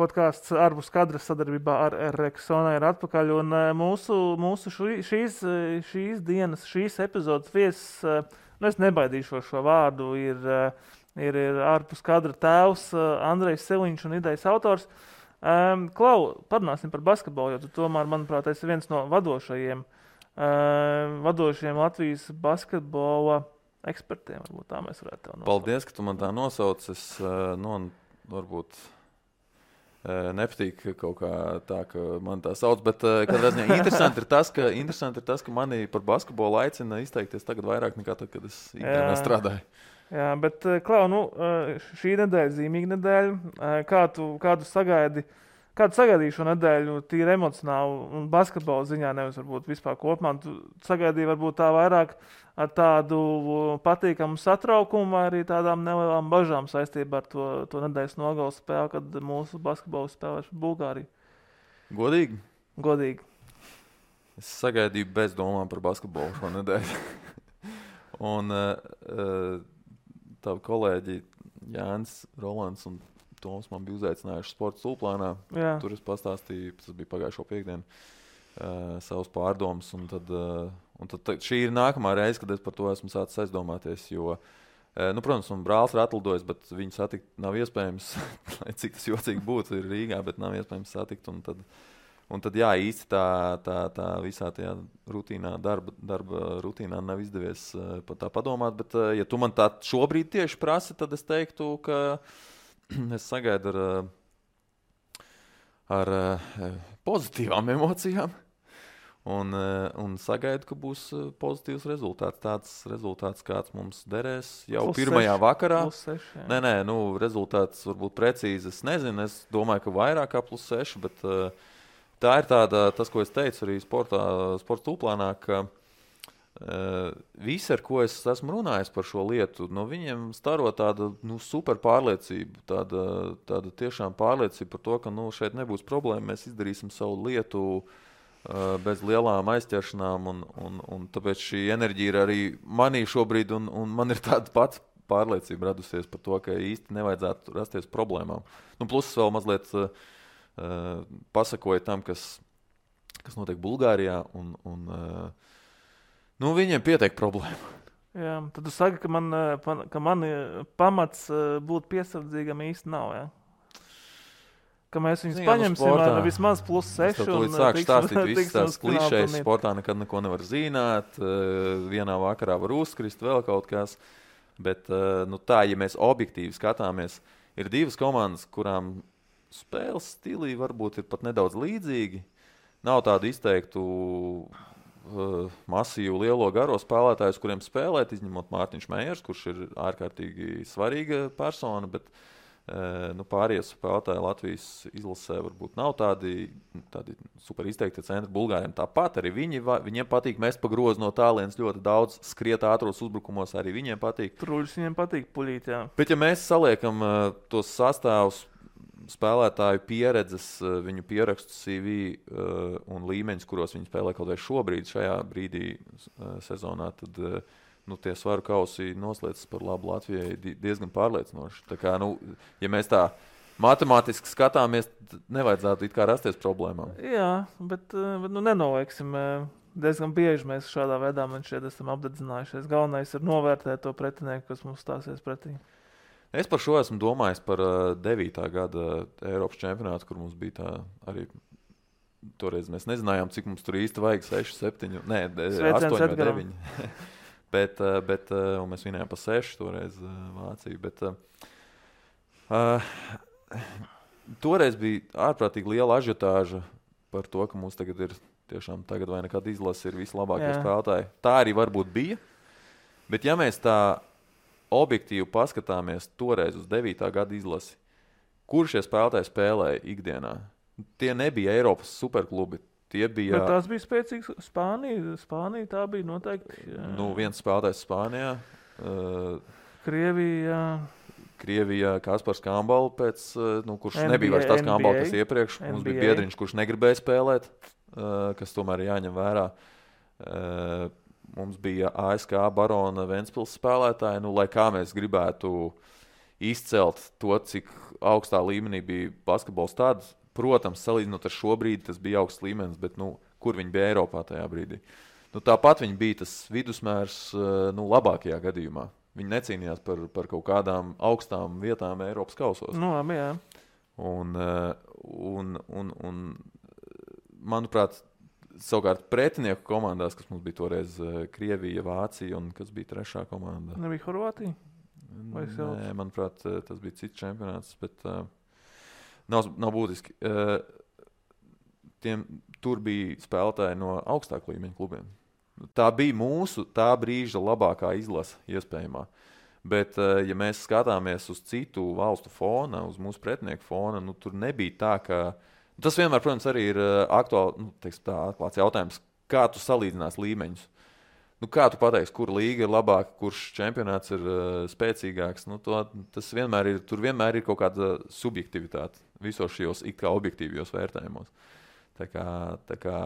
Podcasts ārpus kadra sadarbībā ar Rexona ir atpakaļ, un mūsu šīs dienas, šīs epizodes viesis, es nebaidīšos šo vārdu, ir ārpus kadra tēvs Andrejs Seliņš un idejas autors. Klau, parunāsim par basketbolu, jo tu tomēr, manuprāt, esi viens no vadošajiem Latvijas basketbola ekspertiem, varbūt tā mēs varētu tev nosaukt. Paldies, ka tu man tā nosauc. Es varbūt nepatīk kaut kā tā, ka man tā sauc, bet katrā ziņā interesanti ir tas, ka mani par basketbolu aicina izteikties tagad vairāk nekā tad, kad es ikdienā strādāju. Jā, bet Klau, šī nedēļa, zīmīga nedēļa, kā tu sagaidi? Kādu sagaidīju šo nedēļu tīri emocionāli un basketbola ziņā, nevis varbūt vispār kopumā? Tu sagaidīji varbūt tā vairāk ar tādu patīkamu satraukumu vai arī tādām nelielām bažām saistībā ar to nedēļas nogalas spēli, kad mūsu basketbola spēlēs par Bulgāriju? Godīgi. Es sagaidīju bez domām par basketbolu šo nedēļu. Un tavi kolēģi Jānis Rolands un Toms man bija uzaicinājuši sporta stulplānā. Jā. Tur es pastāstīju, tas bija pagājušo piekdienu, savus pārdomas. Un tad šī ir nākamā reize, kad es par to esmu sācis aizdomāties, jo, protams, un brālis ir atlidojis, bet viņu satikt nav iespējams, cik tas jocīgi būtu, ir Rīgā, bet nav iespējams satikt. Un tad jā, īsti tā visā tajā rutīnā, darba rutīnā nav izdevies par tā padomāt, bet ja tu man tā šobrīd tieši prasi, tad es teiktu, ka es sagaidu ar pozitīvām emocijām un sagaidu, ka būs pozitīvs rezultāts. Tāds rezultāts, kāds mums derēs jau pirmajā vakarā. +6, Nē, rezultāts varbūt precīzi, es nezinu, es domāju, ka vairāk kā +6, bet tā ir tas, ko es teicu arī sporta stulplānā, ka visi, ar ko es esmu runājis par šo lietu, no viņiem staro tāda super pārliecība, tāda tiešām pārliecība par to, ka šeit nebūs problēma, mēs izdarīsim savu lietu bez lielām aizķeršanām, un tāpēc šī enerģija ir arī manī šobrīd, un man ir tāda pati pārliecība radusies par to, ka īsti nevajadzētu rasties problēmām. Plus vēl mazliet pasakoja tam, kas notiek Bulgārijā, un viņiem pietiek problēma. Jā, tad tu saki, ka man pamats būt piesardzīgam īsti nav, jā? Ka mēs viņus paņemsim ar vismaz +6. Tad līdz sāku stāstīt visas tās klišejas, sportā nekad neko nevar zināt, vienā vakarā var uzkrist, vēl kaut kas. Bet tā, ja mēs objektīvi skatāmies, ir divas komandas, kurām spēles stilī varbūt ir pat nedaudz līdzīgi. Nav tādu izteiktu masīvu lielo garo spēlētājus, kuriem spēlēt, izņemot Mārtiņš Meijers, kurš ir ārkārtīgi svarīga persona, bet pārējie spēlētāji Latvijas izlasē varbūt nav tādi super izteikti centri. Bulgāriem tāpat arī viņiem patīk mest pa grozu no tālienes ļoti daudz, skriet ātros uzbrukumos arī viņiem patīk. Truļus viņiem patīk puļīt, jā. Bet ja mēs saliekam tos sastāvus, spēlētāju pieredzes, viņu pierakstu CV un līmeņus, kuros viņi spēlē kaut vai šobrīd, šajā brīdī sezonā, tad tie svaru kausi noslēdzas par labu Latvijai diezgan pārliecinoši. Tā kā, ja mēs tā matemātiski skatāmies, nevajadzētu it kā rasties problēmām. Jā, bet nenolieksim. Diezgan bieži mēs šādā veidā esam apdedzinājušies. Galvenais ir novērtēt to pretinieku, kas mums stāsies pretī. Es par šo esmu domājis par 9. gada Eiropas čempionātu, kur mums bija tā arī toreiz mēs nezinājām, cik mums tur īsti vajag 6, 7, 8 vai 9. bet un mēs vinējām pa 6 toreiz Vāciju. Bet toreiz bija ārprātīgi liela ažiotāža par to, ka mums tagad ir tiešām tagad vai nekad izlase ir vislabākie spēlētāji. Tā arī varbūt bija, bet ja mēs tā objektīvi paskatāmies toreiz uz 9. gada izlasi, kur šie spēlētāji spēlēja ikdienā. Tie nebija Eiropas superklubi. Tie bija... Bet tās bija spēcīgas Spānija tā bija noteikti. Viens spēlētājs Spānijā. Krievijā Kaspars Kambala, kurš NBA, nebija vairs tās Kambala, kas iepriekš. NBA. Mums bija biedriņš, kurš negribēja spēlēt, kas tomēr ir jāņem vērā. Mums bija ASK Barona Ventspils spēlētāji, lai kā mēs gribētu izcelt to, cik augstā līmenī bija basketbols tāds. Protams, salīdzinot ar šo brīdi, tas bija augsts līmenis, bet kur viņi bija Eiropā tajā brīdī? Tāpat viņi bija tas vidusmērs labākajā gadījumā. Viņi necīnījās par kaut kādām augstām vietām Eiropas kausos. Labi, jā. Un manuprāt, savukārt pretinieku komandās, kas mums bija toreiz Krievija, Vācija un kas bija trešā komanda. Nebija Horvātija? Nē, manuprāt, tas bija cits čempionāts, bet nav būtiski. Tur bija spēlētāji no augstāku līmeņu klubiem. Tā bija mūsu tā brīža labākā izlase iespējamā. Bet, ja mēs skatāmies uz citu valstu fona, uz mūsu pretinieku fona, tur nebija tā, ka tas vienmēr, protams, arī ir atklāts jautājums, kā tu salīdzinās līmeņus. Kā tu pateiksi, kur līga ir labāka, kurš čempionāts ir spēcīgāks? Tas vienmēr ir, tur vienmēr ir kaut kāda subjektivitāte visos šajos it kā objektīvajos vērtējumos. Tā kā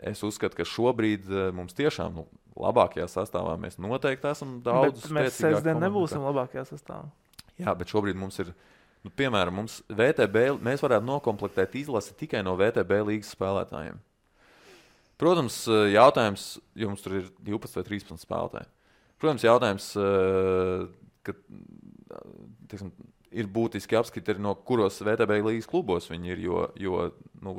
es uzskatu, ka šobrīd mums tiešām labākajā sastāvā mēs noteikti esam daudz spēcīgāki. Bet mēs sestdien nebūsim labākajā sastāvā. Jā, bet šobrīd mums ir, piemēram, mums mēs varētu nokomplektēt izlasi tikai no VTB līgas spēlētājiem. Protams, jautājums, jo mums tur ir 12 vai 13 spēlētāji. Protams, jautājums, ka ir būtiski apskati arī no kuros VTB līgas klubos viņi ir, jo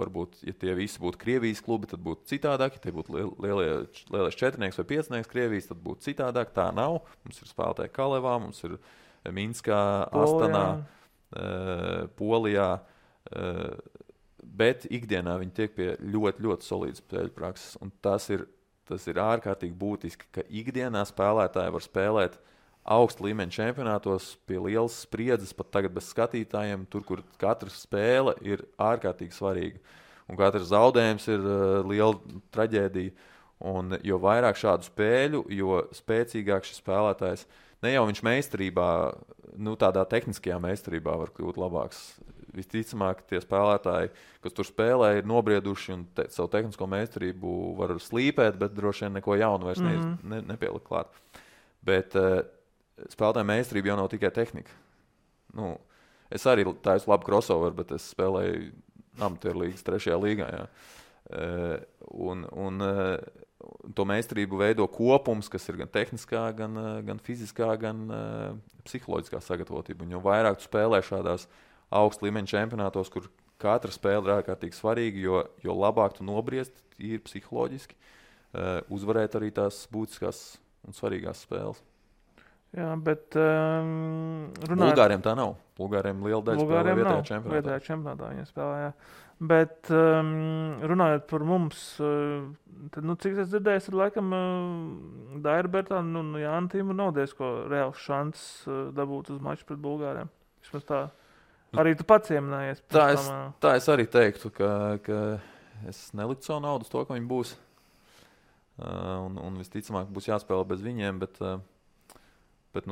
varbūt, ja tie visi būtu Krievijas klubi, tad būtu citādāk. Ja tie būtu lielais četrnieks vai piecnieks Krievijas, tad būtu citādāk. Tā nav. Mums ir spēlētāji Kalevā, mums ir Minskā, Astanā, Polijā. Bet ikdienā viņi tiek pie ļoti, ļoti solīdas spēļu prakses. Un tas ir ārkārtīgi būtiski, ka ikdienā spēlētāji var spēlēt augsta līmeņa čempionātos pie lielas spriedzes, pat tagad bez skatītājiem, tur, kur katra spēle ir ārkārtīgi svarīga. Un katrs zaudējums ir liela traģēdija. Un jo vairāk šādu spēļu, jo spēcīgāk šis spēlētājs, ne jau viņš meistarībā, tādā tehniskajā meistarībā var kļūt labāks. Visticamāk, tie spēlētāji, kas tur spēlē, ir nobrieduši un savu tehnisko meistarību var slīpēt, bet droši vien neko jaunu vairs nepielikt klāt. Bet spēlētāju meistarība jau nav tikai tehnika. Es arī taisu labu crossover, bet es spēlēju amatieru līgas 3. līgā. Jā. Un to meistarību veido kopums, kas ir gan tehniskā, gan fiziskā, gan psiholoģiskā sagatavotība. Un jo vairāk tu spēlē šādās augsta līmeņa čempionātos, kur katra spēle ir ārkārtīgi svarīga, jo labāk tu nobriest ir psiholoģiski, uzvarēt arī tās būtiskās un svarīgās spēles. Jā, bet Bulgāriem tā nav. Bulgāriem liela daļa spēlē vietējā čempionātā. Vietējā čempionātā viņa spēlē, jā. Bet runājot par mums, tad, cik es dzirdēju, ir laikam Daira Bertāna un Jāna Tīma nav diezko reāls šants dabūt uz maču pret Bulgāriem. Vismaz tā. Arī tu pats ieminējies. Tā es arī teiktu, ka es neliktu savu naudu uz to, ka viņi būs. Un visticamāk būs jāspēlē bez viņiem, bet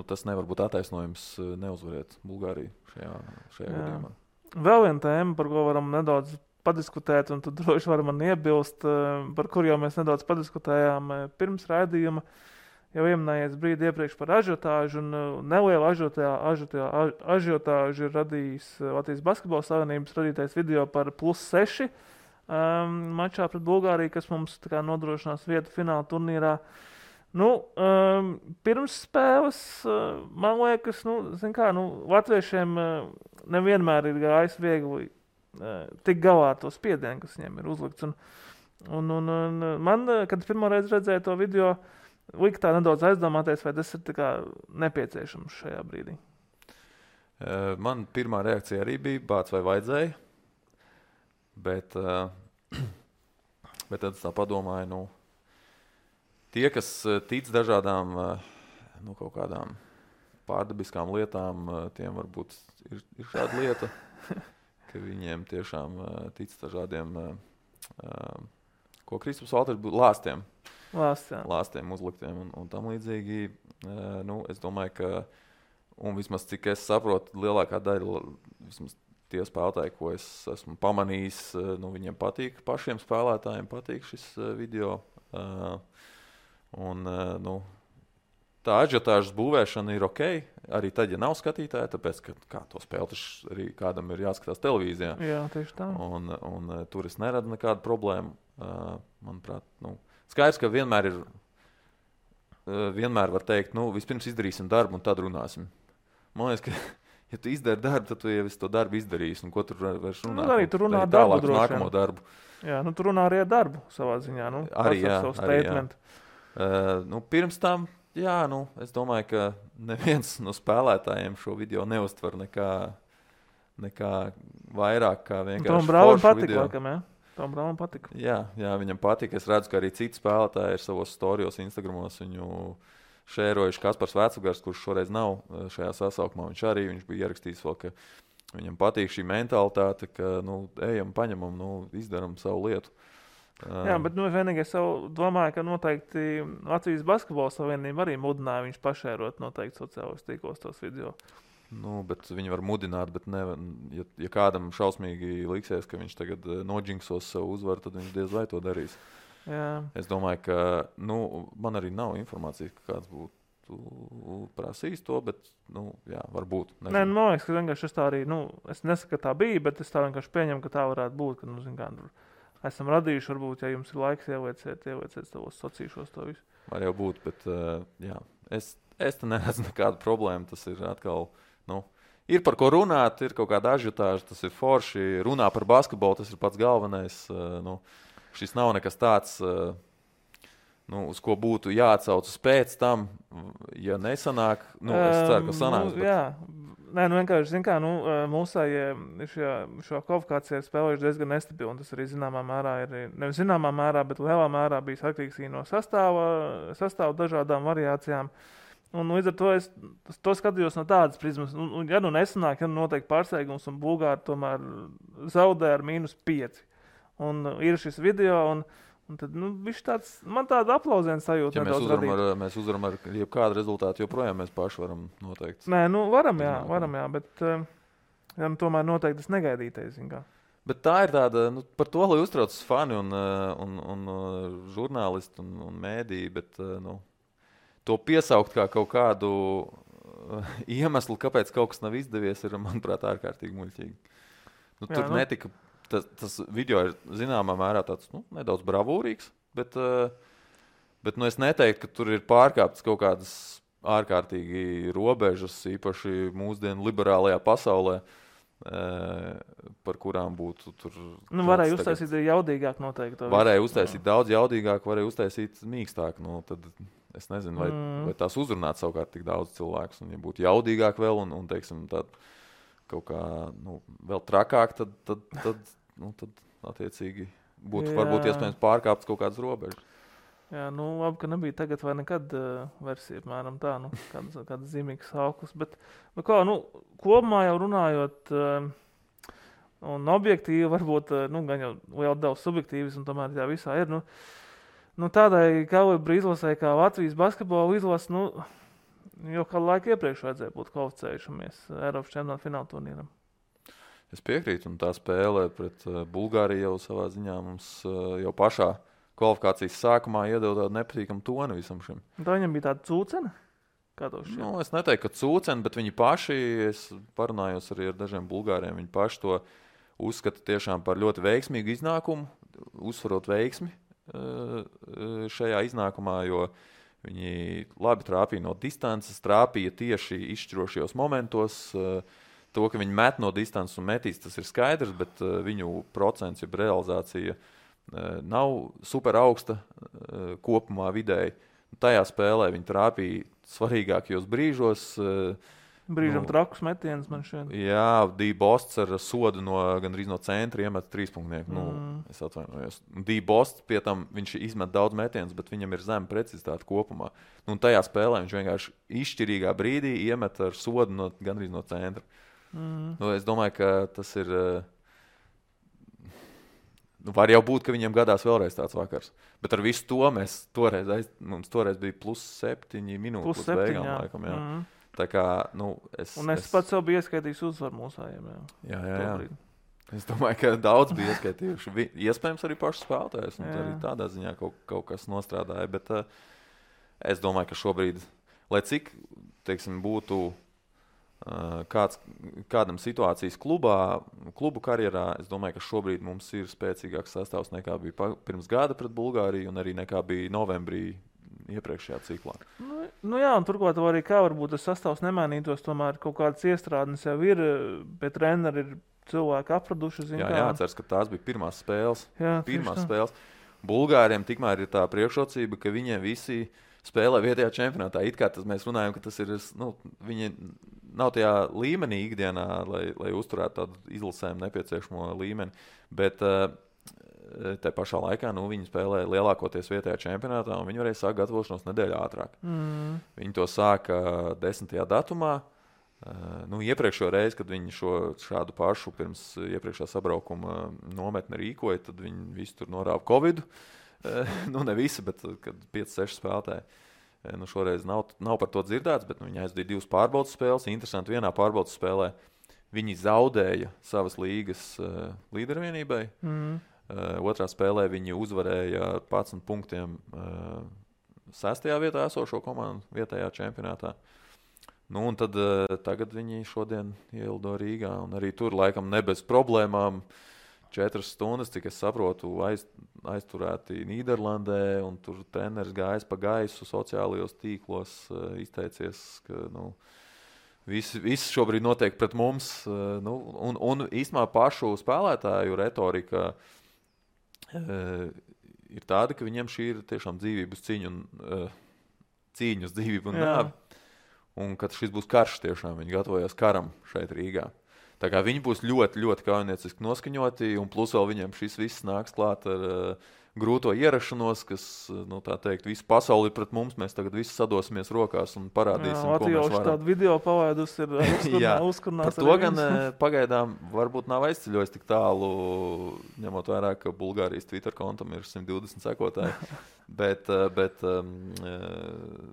tas nevar būt attaisnojums neuzvarēt Bulgāriju šajā gadījumā. Vēl viena tēma, par ko varam nedaudz padiskutēt, un tu droši vari man iebilst, par kur jau mēs nedaudz padiskutējām pirms raidījuma. Jau ieminējies brīdi iepriekš par ažiotāžu, un nelielu ažiotāžu ir radījis Latvijas Basketbola Savienības radītais video par +6 mačā pret Bulgāriju, kas mums nodrošinās vietu fināla turnīrā. Pirms spēles, man liekas, latviešiem nevienmēr ir gājis viegli tik galā to spiedienu, kas viņiem ir uzlikts. Un man, kad pirmo reizi redzēju to video, lika tā nedaudz aizdomāties, vai tas ir nepieciešams šajā brīdī. Man pirmā reakcija arī bija bāc vai vajadzēja, bet tad es tā padomāju, tie, kas tic dažādām kaut kādām pārdabiskām lietām, tiem varbūt ir šāda lieta, ka viņiem tiešām tic dažādiem, ko Kristaps Valters būtu lāstiem uzliktiem un tam līdzīgi. Es domāju, ka, un vismaz cik es saprotu, lielākā daļa, vismaz tie spēlētāji, ko es esmu pamanījis, viņiem patīk, pašiem spēlētājiem patīk šis video. Tā ažiotāžas būvēšana ir ok, arī tad, ja nav skatītāji, tāpēc, ka to spēli arī kādam ir jāskatās televīzijā. Jā, tieši tā. Un tur es neradu nekādu problēmu. Manuprāt, skaidrs, ka vienmēr var teikt, vispirms izdarīsim darbu un tad runāsim. Man liekas, ka, ja tu izdari darbu, tad tu jau visu to darbu izdarīsi. Un ko tur vairs runāt? Arī tu runā darbu droši. Nākamo darbu. Jā, tu runā arī ar darbu savā ziņā. Arī jā. Pirms tam, es domāju, ka neviens no spēlētājiem šo video neuztver nekā vairāk kā vienkārši Tom Braunim patika, laikam, jā? Tom Braunim patika. Jā, viņam patika. Es redzu, ka arī citi spēlētāji ir savos storijos, Instagramos viņu šērojuši. Kaspars Vecugars, kurš šoreiz nav šajā sasaukumā, viņš bija ierakstījis vēl, ka viņam patīk šī mentalitāte, ka, ejam, paņemam, izdaram savu lietu. Jā, bet vienīgais domāju, ka noteikti Latvijas Basketbola Savienība arī mudināja viņš pašērot noteikti sociālos tīklos tos video. Bet viņi var mudināt, bet ja kādam šausmīgi liksies, ka viņš tagad nodžinksos savu uzvaru, tad viņš diez vai to darīs. Jā. Es domāju, ka man arī nav informācijas, ka kāds būtu būtu prasījis to, bet, jā, varbūt. Nē, man liekas, ka vienkārši es tā arī, es nesaku, ka tā bija, bet es tā vienkārši pieņemu, ka tā varētu būt, ka, zin kā, esam radījuši, varbūt, ja jums ir laiks ielieciet savos sacīšos to visu. Var jau būt, bet, jā, es te neredzu nekādu problēmu, tas ir atkal, ir par ko runāt, ir kaut kāda ažiotāža, tas ir forši, runā par basketbolu, tas ir pats galvenais, šis nav nekas tāds, uz ko būtu jāatsaucas pēc tam, ja nesanāk, es ceru, ka sanāks. Bet... Jā, nē, vienkārši, zin kā, mūsējie šo kvalifikāciju spēlējuši diezgan nestabili, un tas arī zināmā mērā ir, nevis zināmā mērā, bet lielā mērā bijis atkarīgs no sastāva dažādām variācijām. Un līdz ar to es to skatījos no tādas prizmas. Ja nesanāk, ja notiek pārsteigums, un Bulgāri tomēr zaudē ar -5. Un ir šis video, un tad, man tāda aplausiena sajūta ja nedaudz radīt. Mēs uzvaram ar jebkādu rezultātu, joprojām mēs paši varam noteikt. Nē, varam, jā, bet tomēr noteikti tas negaidītais, zin kā. Bet tā ir tāda, par to, lai uztraucas fani un žurnālisti un mēdīji, bet, to piesaukt kā kaut kādu iemeslu, kāpēc kaut kas nav izdevies, ir, manuprāt, ārkārtīgi muļķīgi. Tur netika... Tas video ir zināmā mērā tāds nedaudz bravūrīgs, bet es neteiktu, ka tur ir pārkāptas kaut kādas ārkārtīgi robežas, īpaši mūsdienu liberālajā pasaulē, par kurām būtu tur... Varēja uztaisīt jaudīgāk noteikti. Varēja uztaisīt daudz jaudīgāk, varēja uztaisīt mīkstāk. Tad es nezinu, vai tās uzrunāt savukārt tik daudz cilvēkus. Un ja būtu jaudīgāk vēl un teiksim, tad kaut kā vēl trakāk, tad attiecīgi būtu varbūt iespējams pārkāpts kaut kādas robežas. Jā, labi, ka nebija tagad vai nekad versija, apmēram tā, kāds zīmīgs sauklis. Bet, kopumā jau runājot, un objektīvi varbūt, gan jau liela daudz subjektīvis, un tomēr tā visā ir, tādai kalibra izlasē kā Latvijas basketbola izlase, jau kādu laiku iepriekš vajadzēja būt kvalificējušamies Eiropas čempionāta fināla turnīram. Es piekrītu, un tā spēle pret Bulgāriju jau savā ziņā mums jau pašā kvalifikācijas sākumā iedeva tādu nepatīkamu toni visam šim. Tā viņam bija tāda cūcena? Kā to šķiet? Es neteiktu, ka cūcena, bet viņi paši, es parunājos arī ar dažiem bulgāriem, viņi paši to uzskata tiešām par ļoti veiksmīgu iznākumu, uzsvarot veiksmi šajā iznākumā, jo viņi labi trāpīja no distances, trāpīja tieši izšķirošajos momentos. To, ka viņi met no distances un metīs, tas ir skaidrs, bet viņu procents, jeb realizācija nav super augsta kopumā vidēji. Tajā spēlē viņi trāpīja svarīgākajos brīžos. Brīžam trakus metiens man šeit. Jā, D-Bosts ar sodu gandrīz no centra iemet 3-punktnieku. Es atvainojos. D-Bosts pie tam viņš izmet daudz metienus, bet viņam ir zema precizitāte kopumā. Tajā spēlē viņš vienkārši izšķirīgā brīdī iemet ar sodu gandrīz no centra. Es domāju, ka tas ir... var jau būt, ka viņiem gadās vēlreiz tāds vakars. Bet ar visu to mums toreiz bija +7 minūtes līdz beigām, laikam. Jā. Tā kā, es pats sev biju ieskaitījis uzvaru mūsējiem. Jā. Es domāju, ka daudz bija ieskaitījuši. Iespējams arī paši spēlētājs. Arī tādā ziņā kaut kas nostrādāja. Bet es domāju, ka šobrīd, lai cik, būtu kādam situācijas klubu karjerā, es domāju, ka šobrīd mums ir spēcīgāks sastāvs nekā bija pirms gada pret Bulgāriju un arī nekā bija novembrī iepriekšējā ciklā. Jā, un turklāt arī kā varbūt tas sastāvs nemainītos, tomēr kaut kādas iestrādes jau ir, bet treneri ir cilvēki apraduši. Jāatceras, ka tās bija pirmās spēles. Spēles. Bulgāriem tikmēr ir tā priekšrocība, ka viņiem visi spēlē vietējā čempionātā. It kā mēs runājam, ka tas ir, viņi nav tajā līmenī ikdienā, lai uzturētu tādu izlasēm nepieciešamo līmeni, bet te pašā laikā viņi spēlē lielākoties vietējā čempionātā, un viņi varēja sākt gatavošanos nedēļu ātrāk. Viņi to sāka 10. datumā. Iepriekšējo reizi, kad viņi šādu pašu pirms iepriekšā sabraukuma nometni rīkoja, tad viņi visi tur norāva Covidu. Ne visi, bet kad 5-6 spēlētāji. Šoreiz nav par to dzirdēts, bet viņi aizdīja 2 pārbaudas spēles. Interesanti, vienā pārbaudas spēlē viņi zaudēja savas līgas līdervienībai. Otrā spēlē viņi uzvarēja 11 punktiem 6. vietā esošo komandu vietējā čempionātā. Nu, un tad tagad viņi šodien ielido Rīgā, un arī tur laikam ne bez problēmām 4 stundas, cik es saprotu, aizturēti Nīderlandē, un tur treneris gājis pa gaisu sociālajos tīklos, izteicies, ka, viss šobrīd notiek pret mums, un īstenībā pašu spēlētāju retorika ir tāda, ka viņiem šī ir tiešām dzīvības cīņa uz dzīvību un nāvi. Un kad šis būs karš tiešām, viņi gatavojas karam šeit Rīgā. Tā kā viņi būs ļoti, ļoti kaujinieciski noskaņoti, un plus vēl viņiem šis viss nāks klāt ar grūto ierašanos, kas, tā teikt, visu pasauli pret mums, mēs tagad visi sadosimies rokās un parādīsim, ko mēs varam. Tādu video pavaidus ir uzkurnās. Par to gan pagaidām varbūt nav aizceļojis tik tālu, ņemot vērā, ka Bulgārijas Twitter kontam ir 120 sekotāji, bet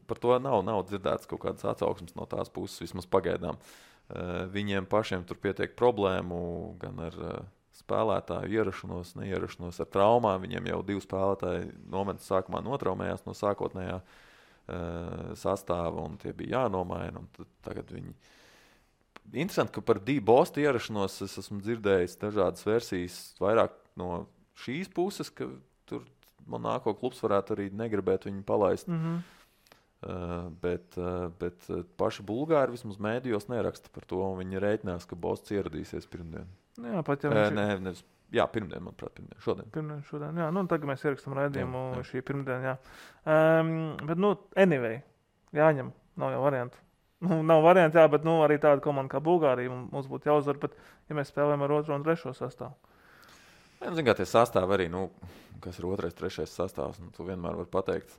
par to nav dzirdēts kaut kādas atsauksmes no tās puses, vismaz pagaidām. Viņiem pašiem tur pietiek problēmu gan ar spēlētāju ierašanos, neierašanos ar traumām. Viņiem jau 2 spēlētāji momentu sākumā notraumējās no sākotnējā sastāva, un tie bija jānomaina. Un tagad viņi... Interesanti, ka par Bosta ierašanos es esmu dzirdējis dažādas versijas vairāk no šīs puses, ka tur Monako klubs varētu arī negribēt viņu palaist. Bet paši Bulgāri vismaz mēdījos neraksta par to, un viņi rēķinās, ka Bosts ieradīsies pirmdien. Jā, pat ja pirmdien, manuprāt, šodien. Šodien, jā. Tagad mēs ierakstam raidījumu šī pirmdien, jā. Bet, anyway, jāņem, nav jau variantu. Nav variantu, jā, bet, arī tāda komanda kā Bulgārija mums būtu jāuzvar, bet, ja mēs spēlējam ar 2. un 3. sastāvu. Zin kā tie sastāvi arī, kas ir 2., 3. sastāvs, tu vienmēr var pateikt.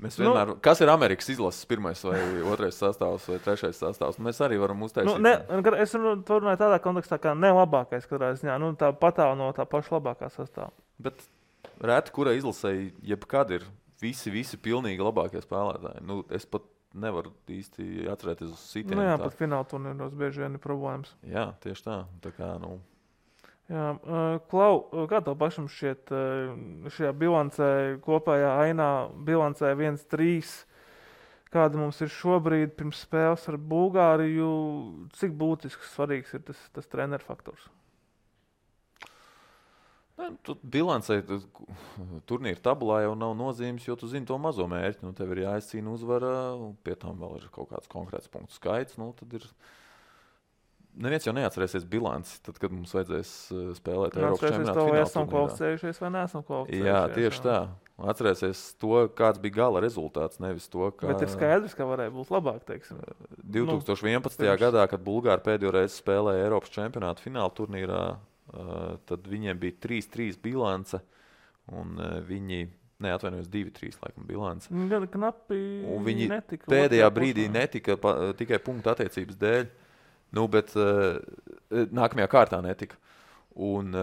Mēs vienmēr, kas ir Amerikas izlases 1. vai 2. sastāvs vai 3. sastāvs, mēs arī varam uztaisīt. Es runāju tādā kontekstā, kā ne labākais, katrā ziņā, tā patāv no tā paša labākā sastāvā. Bet reti, kurai izlasēji, jebkad ir visi pilnīgi labākie spēlētāji. Es pat nevaru īsti atcerēties uz sitieniem. Jā, pat fināla turnīros bieži vien ir problēmas. Jā, tieši tā. Tā kā, Jā, Klau, kā tev pašam šķiet šajā bilancē, kopējā ainā bilancē 1-3, kāda mums ir šobrīd pirms spēles ar Bulgāriju, cik būtisks, svarīgs ir tas treneru faktors? Bilancē turnīra tabulā jau nav nozīmes, jo tu zini to mazo mērķi. Tev ir jāizcīna uzvara, un pie tam vēl ir kaut kāds konkrēts punktu skaits. Tad ir... Neviens jau neatcerēsies bilanci, tad, kad mums vajadzēs spēlēt Eiropas čempionāta fināla turnīrā. Esam kvalificējušies vai neesam kvalificējušies. Jā, tieši tā. Atcerēsies to, kāds bija gala rezultāts, nevis to, kā... Bet ir skaidrs, ka varēja būt labāk, teiksim. 2011. Gadā, kad Bulgāri pēdējo reizi spēlēja Eiropas čempionāta fināla turnīrā, tad viņiem bija 3-3 bilance, un viņi... Neatvainojos 2-3 laikam bilance. Gan knapi un viņi netika. Pēdējā brīdī netika tikai punktu attiecības dēļ. Bet nākamajā kārtā netika. Un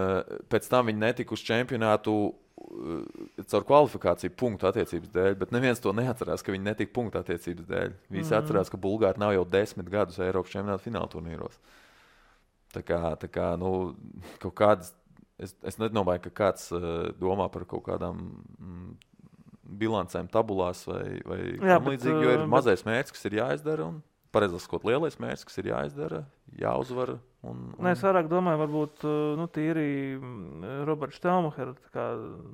pēc tam viņi netika uz čempionātu caur kvalifikāciju punktu attiecības dēļ, bet neviens to neatcerās, ka viņi netika punktu attiecības dēļ. Visi atcerās, ka Bulgāri nav jau 10 gadus Eiropas čempionāta fināla turnīros. Tā kā kaut kādas, es nedomāju, ka kāds domā par kaut kādām bilancēm tabulās vai tam līdzīgi, jo ir mazais mērķis, kas ir jāizdara un pareizāk sakot, lielais mērķis, kas ir jāizdara, jāuzvar. Es vairāk domāju, varbūt tīri Roberts Štelmacher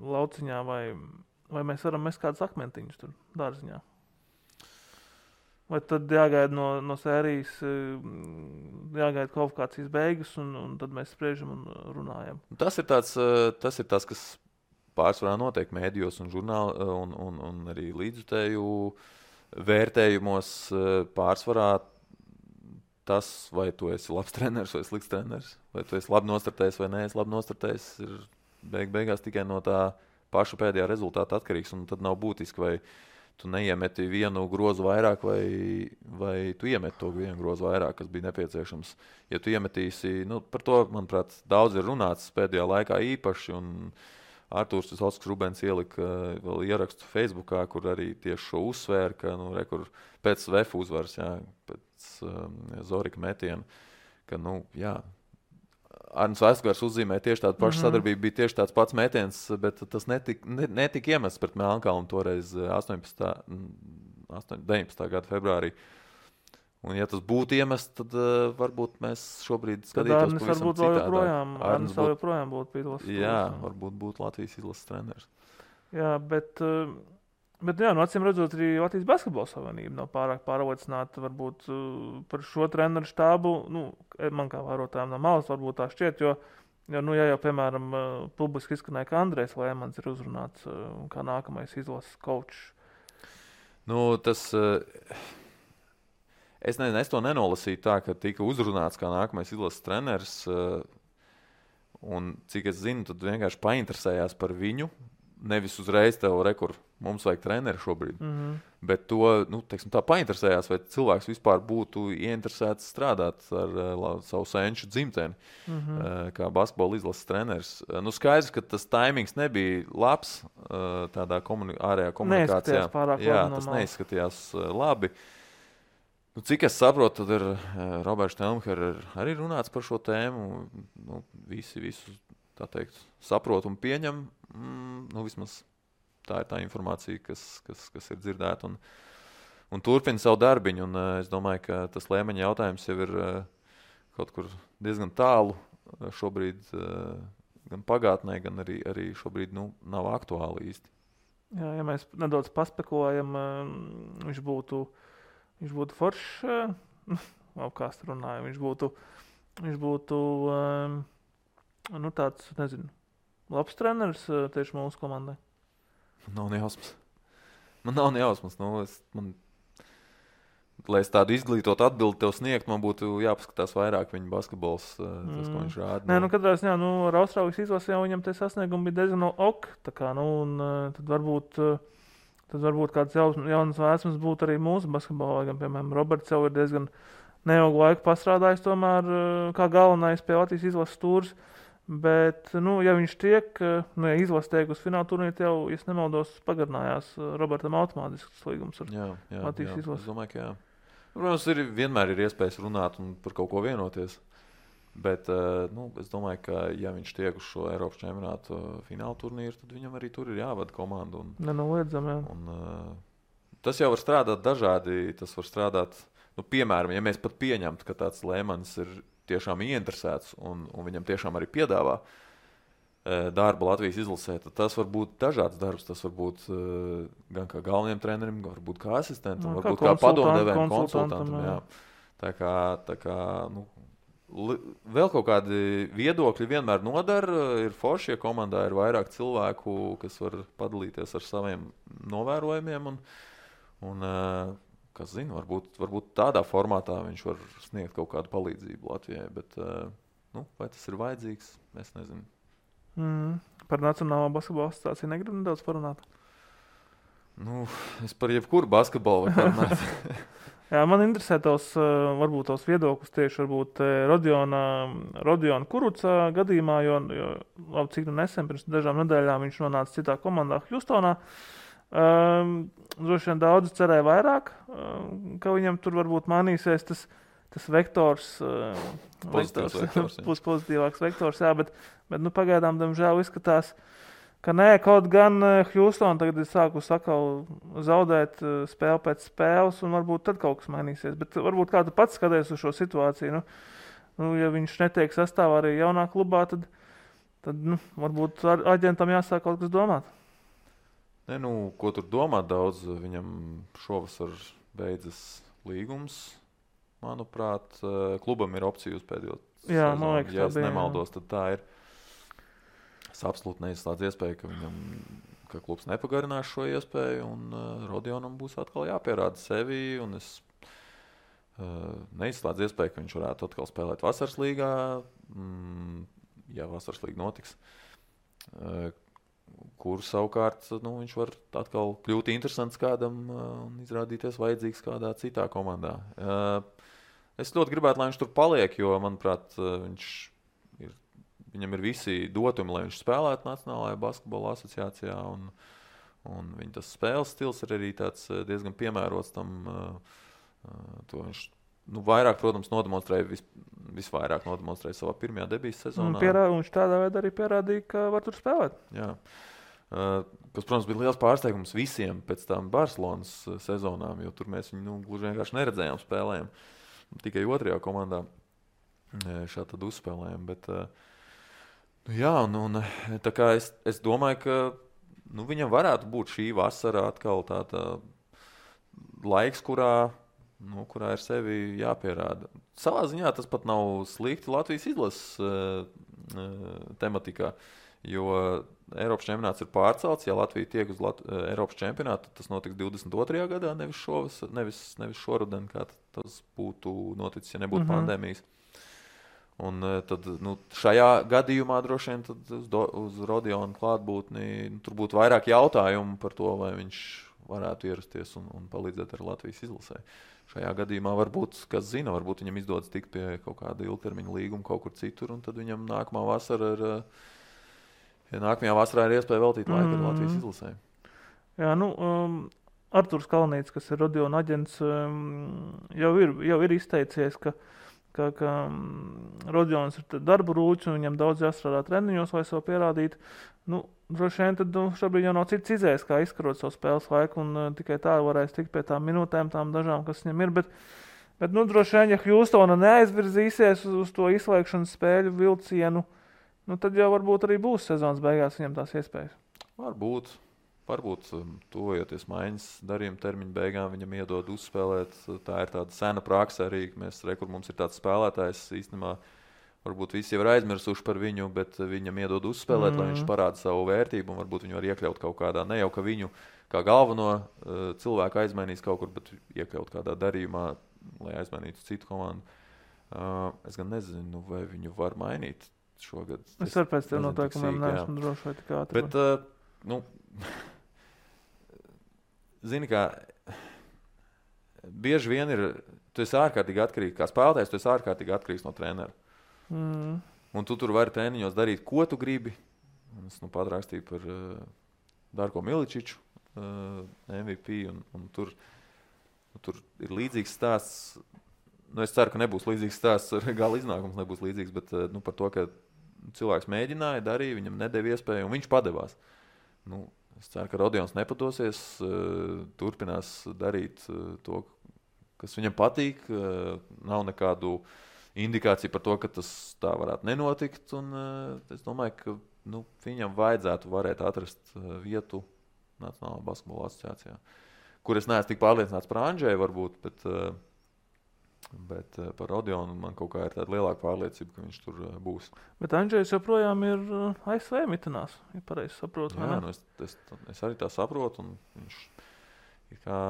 lauciņā, vai mēs varam mest kādus akmentiņus tur dārziņā. Vai tad jāgaida no sērijas, jāgaida kvalifikācijas beigas, un tad mēs spriežam un runājam. Tas ir tas, kas pārsvarā notiek mēdījos un žurnāli un arī līdzjutēju vērtējumos pārsvarā tas, vai tu esi labs treneris vai slikts treneris, vai tu esi labi nostartējis vai neesi labi nostartējis, ir beigās tikai no tā paša pēdējā rezultāta atkarīgs, un tad nav būtiski, vai tu neiemeti vienu grozu vairāk, vai tu iemeti to vienu grozu vairāk, kas bija nepieciešams. Ja tu iemetīsi, par to, manuprāt, daudz ir runāts pēdējā laikā īpaši, un Artūrs Visvalsks Rubens ielika vēl ierakstu Facebookā, kur arī tieši šo uzsvēra, ka kur pēc VF uzvaras, pēc Zorika metiena, ka Arnis Vaisgars uzzīmē tieši tādu pašu sadarbību, bija tieši tāds pats metiens, bet tas netika iemests pret Melnkalnu toreiz 19. gada februārī. Un ja tas būtu iemests, tad varbūt mēs šobrīd skatītos pavisam citādā. Arnis vēl joprojām būtu pītos. Jā, varbūt būtu Latvijas izlases treneris. Jā, bet jā, acīm redzot, arī Latvijas basketbola savienība nav pārāk pārliecināta varbūt par šo treneru štābu. Man kā vērotājiem no malas varbūt tā šķiet, jo jau, piemēram, publiski izskanēja, ka Andrejs Lēmans ir uzrunāts kā nākamais izlases kočs. Tas... Es to nenolasīju tā, ka tika uzrunāts kā nākamais izlases treneris, un cik es zinu, tad vienkārši painteresējās par viņu, nevis uzreiz tev mums vajag treneri šobrīd, bet to, teiksim tā, painteresējās, vai cilvēks vispār būtu ieinteresēts strādāt ar savu senču dzimteni, kā basketbola izlases treneris. Skaidrs, ka tas taimings nebija labs tādā ārējā komunikācijā. Neizskatījās pārāk labi. Jā, tas neizskatījās labi. Cik es saprotu, tad ir Roberts Telmher arī runāts par šo tēmu. Visi visu, tā teikt, saprot un pieņem. Vismaz tā ir tā informācija, kas ir dzirdēta un turpina savu darbiņu. Un es domāju, ka tas Lēmeņa jautājums jau ir kaut kur diezgan tālu šobrīd, gan pagātnē, gan arī šobrīd nav aktuāli īsti. Jā, ja mēs nedaudz paspekulējam, viņš būtu foršs, apkāst runājam, viņš būtu tāds, nezinu, labs treneris tieši mūsu komandai. Man nav ne jausmas. Lai es tādu izglītotu atbildi tev sniegt, man būtu jāpaskatās vairāk viņa basketbols, tas, ko viņš rāda. Katrā ziņā, ar Austrālijas izlasi jau viņam tie sasniegumi bija diezgan ok, tā kā, tad varbūt kāds jaunas vēsmas būtu arī mūsu basketbolā, gan, piemēram, Roberts jau ir diezgan neilgu laiku pastrādājis tomēr kā galvenais pie Latvijas izlases stūres, bet, ja viņš tiek, ja izlase tiek uz fināla turnīru, jau, ja nemaldos, pagarinājās Robertam automātisks līgums ar Latvijas izlasi. Es domāju, ka jā. Protams, vienmēr ir iespējas runāt un par kaut ko vienoties. Bet es domāju, ka ja viņš tiek uz šo Eiropas čempionātu fināla turnīru, tad viņam arī tur ir jāvada komanda. Nenoliedzam, jā. Tas jau var strādāt dažādi. Tas var strādāt, piemēram, ja mēs pat pieņemtu, ka tāds Lēmans ir tiešām ieinteresēts un viņam tiešām arī piedāvā darbu Latvijas izlasē, tad tas var būt dažāds darbs. Tas var būt gan kā galvenajam trenerim, varbūt kā asistentam, varbūt kā padomdevējam, konsultantam. Jā. Tā kā vēl kaut kādi viedokļi vienmēr nodara. Ir forši, ja komandā ir vairāk cilvēku, kas var padalīties ar saviem novērojumiem. Un kas zina, varbūt tādā formātā viņš var sniegt kaut kādu palīdzību Latvijai. Bet vai tas ir vajadzīgs, es nezinu. Par Nacionālo basketbola asociāciju negribu nedaudz parunāt? Es par jebkuru basketbolu varu parunāt. Jā, man interesē varbūt tos viedokļus tieši varbūt Rodiona Kuruca gadījumā, jo cik nesen pirms dažām nedēļām viņš nonāca citā komandā Hjustonā. Droši vien daudzi cerēja vairāk, ka viņam tur varbūt mainīsies tas vektors, pozitīvāks vektors, jā, bet pagaidām, diemžēl, izskatās, ka nē, kaut gan Hjustona tagad ir sākusi atkal zaudēt spēli pēc spēles, un varbūt tad kaut kas mainīsies. Bet varbūt kā tu pats skaties uz šo situāciju, ja viņš netiek sastāvā arī jaunā klubā, tad varbūt aģentam jāsāk kaut kas domāt. Ko tur domāt daudz, viņam šovasar beidzas līgums, manuprāt, klubam ir opcija uz pēdējo sezonu. Ja es nemaldos, tad tā ir. Es absolūti neizslēdzu iespēju, ka klubs nepagarinās šo iespēju, un Rodionam būs atkal jāpierāda sevi, un es neizslēdzu iespēju, ka viņš varētu atkal spēlēt vasaras līgā, ja vasaras līga notiks, kur savukārt viņš var atkal kļūt interesants kādam un izrādīties vajadzīgs kādā citā komandā. Es ļoti gribētu, lai viņš tur paliek, jo, manuprāt, viņam ir visi dotumi, lai viņš spēlētu Nacionālajā basketbola asociācijā, un viņa tas spēles stils ir arī tāds diezgan piemērots tam. To viņš vairāk, protams, visvairāk nodemonstrēja savā pirmajā debijas sezonā. Viņš tādā veidā arī pierādīja, ka var tur spēlēt. Jā. Kas, protams, bija liels pārsteigums visiem pēc tam Barcelonas sezonām, jo tur mēs viņu gluži vienkārši neredzējām spēlējām. Tikai otrajā komandā šādi tad uzspēlējām. Bet, un tā kā es domāju, ka viņam varētu būt šī vasara atkal tāda laiks, kurā ir sevi jāpierāda. Savā ziņā tas pat nav slikti Latvijas izlases tematikā, jo Eiropas čempionāts ir pārcelts. Ja Latvija tiek uz Eiropas čempionātu, tas notiks 22. gadā, nevis šoruden, kā tas būtu noticis, ja nebūtu pandēmijas. Un tad šajā gadījumā droši vien uz Rodiona klātbūtni tur būtu vairāk jautājumu par to, vai viņš varētu ierasties un palīdzēt ar Latvijas izlasē. Šajā gadījumā varbūt, kas zina, varbūt viņam izdodas tikt pie kaut kāda ilgtermiņa līguma kaut kur citur, un tad viņam nākamajā vasarā ir iespēja veltīt laiku ar Latvijas izlasē. Jā, Arturs Kalnīts, kas ir Rodiona aģents, jau ir izteicies, ka Rodions ir darba rūķis un viņam daudz jāstrādā treniņos, lai sev pierādītu. Droši vien tad šobrīd jau nav cits izējas, kā izkarot savu spēles laiku, un tikai tā varēs tikt pie tām minūtēm, tām dažām, kas viņam ir. Bet droši vien, ja Hjūstona neaizvirzīsies uz to izslēgšanas spēļu vilcienu, tad jau varbūt arī būs sezonas beigās viņam tās iespējas. Varbūt tuvojoties maiņas darījuma termiņa beigām, viņam iedod uzspēlēt. Tā ir tāda sena praksa arī, ka mums ir tāds spēlētājs īstenībā. Varbūt visi jau ir aizmirsuši par viņu, bet viņam iedod uzspēlēt, lai viņš parāda savu vērtību, un varbūt viņu var iekļaut kaut kādā, ne jau ka viņu kā galveno cilvēku aizmainīs kaut kur, bet iekļaut kādā darījumā, lai aizmainītu citu komandu. Es gan nezinu, vai viņu var mainīt šogad. Es varu pēc tev noteikumiem neesmu droši vai tik ātri. Bet, zini, kā bieži vien tu esi ārkārtīgi atkarīgs, kā spēlētājs, tu esi ārkārtīgi atkarīgs no trenera. Un tu tur vari treniņos darīt, ko tu gribi. Es pat rakstīju par Darko Miličiču, MVP, un tur ir līdzīgs stāsts. Es ceru, ka nebūs līdzīgs stāsts, gala iznākums nebūs līdzīgs, bet par to, ka cilvēks mēģināja, darīja, viņam nedēva iespēju, un viņš padevās. Es ceru, ka Rodions nepadosies, turpinās darīt to, kas viņam patīk. Nav nekādu indikācija par to, ka tas tā varētu nenotikt, un es domāju, ka viņam vajadzētu varēt atrast vietu Nacionālajā basketbola asociācijā, kur es neesmu tik pārliecināts par Andžeju varbūt, bet par Rodionu man kaut kā ir tāda lielāka pārliecība, ka viņš tur būs. Bet Andžejs joprojām ir ASV mitinās, ja pareizi saprotu. Jā, es arī tā saprotu, un viņš ir kā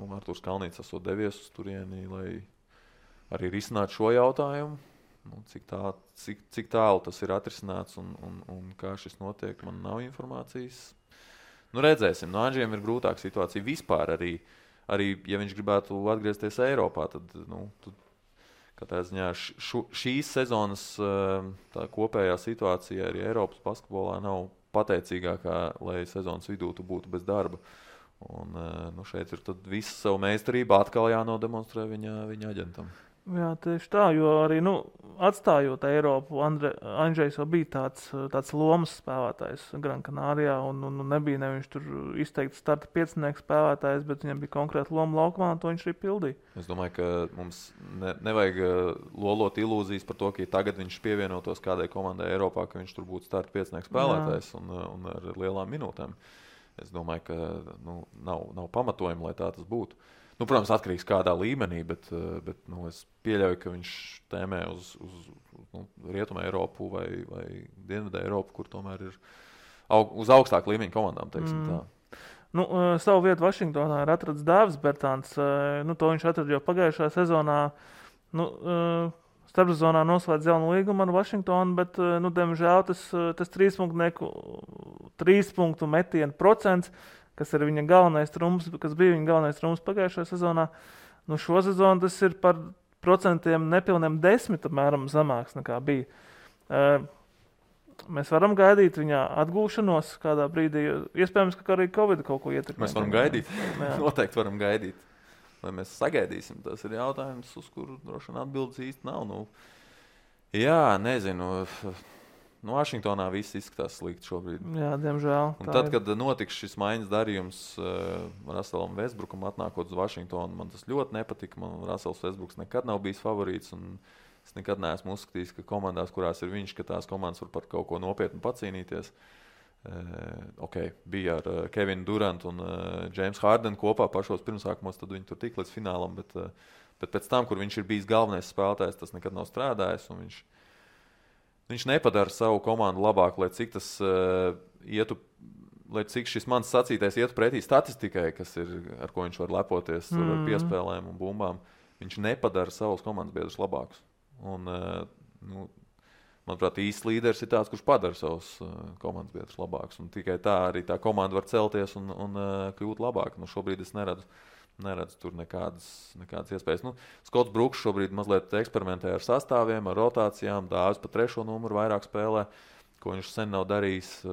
Arturs Kalnīts esot devies uz turieni, lai arī risināt šo jautājumu, cik tālu tas ir atrisināts un kā šis notiek, man nav informācijas. Redzēsim, no Andžiem ir grūtāka situācija vispār arī, ja viņš gribētu atgriezties Eiropā, tad katrā ziņā šīs sezonas tā kopējā situācija arī Eiropas basketbolā nav pateicīgākā, lai sezonas vidū tu būtu bez darba. Un šeit ir tad visa savu meistarību atkal jānodemonstrē viņa aģentam. Jā, tieši tā, jo arī atstājot Eiropu, Andžejs jau bija tāds lomas spēlētājs Gran Canarijā, un nebija neviens tur izteikti starta piecinieks spēlētājs, bet viņam bija konkrēta loma laukumā, un to viņš arī pildīja. Es domāju, ka mums nevajag lolot ilūzijas par to, ka tagad viņš pievienotos kādai komandai Eiropā, ka viņš tur būtu starta piecinieks spēlētājs un ar lielām minūtēm. Es domāju, ka nav pamatojuma, lai tā tas būtu. Protams, atkarīgs kādā līmenī, bet es pieļauju, ka viņš tēmē uz Rietumu Eiropu vai Dienvidu Eiropu, kur tomēr ir uz augstāku līmeņu komandām, teiksim tā. Savu vietu Vašingtonā ir atrads Dāvis Bertāns. To viņš atrada jau pagājušajā sezonā. Starpsezonā noslēdz jaunu līgumu ar Vašingtonu, bet, diemžēl, tas trīspunktu metienu procents, kas ir viņa galvenais trumps, kas bija viņa galvenais trumps pagājušajā sezonā. Šo sezonu tas ir par procentiem nepilniem 10 apmēram zemāks nekā bija. Mēs varam gaidīt viņa atgūšanos kādā brīdī. Iespējams, ka arī Covid kaut ko ietekmē. Mēs varam gaidīt. Noteikti varam gaidīt. vai mēs sagaidīsim, tas ir jautājums, uz kuru droši vien atbildes īsti nav. Nu, jā, nezinu. Vašingtonā viss izskatās slikti šobrīd. Jā, diemžēl. Un tad, kad notiks šis maiņas darījums Russellam Westbrookam atnākot uz Vašingtonu, man tas ļoti nepatika. Man Russells Westbrooks nekad nav bijis favorīts, un es nekad neesmu uzskatījis, ka komandās, kurās ir viņš, ka tās komandas var par kaut ko nopietnu pacīnīties. Bija ar Kevinu Durantu un James Harden kopā pašos pirmsākumos, tad viņi tur tik līdz finālam, bet pēc tam, kur viņš ir bijis galvenais spēlētājs, tas nekad nav strādājis, un viņš nepadara savu komandu labāk, lai cik tas lai cik šis mans sacītais ietu pretī statistikai, kas ir, ar ko viņš var lepoties ar piespēlēm un bumbām. Viņš nepadara savus komandas biedrus labākus. Un, manuprāt, īsts līderis ir tāds, kurš padara savus komandas biedrus labākus. Un tikai tā arī tā komanda var celties un kļūt labāk. Šobrīd es neredzu tur nekādas iespējas. Skots Bruks šobrīd mazliet eksperimentē ar sastāviem, ar rotācijām, Dāvis pa 3. numuru vairāk spēlē, ko viņš sen nav darījis.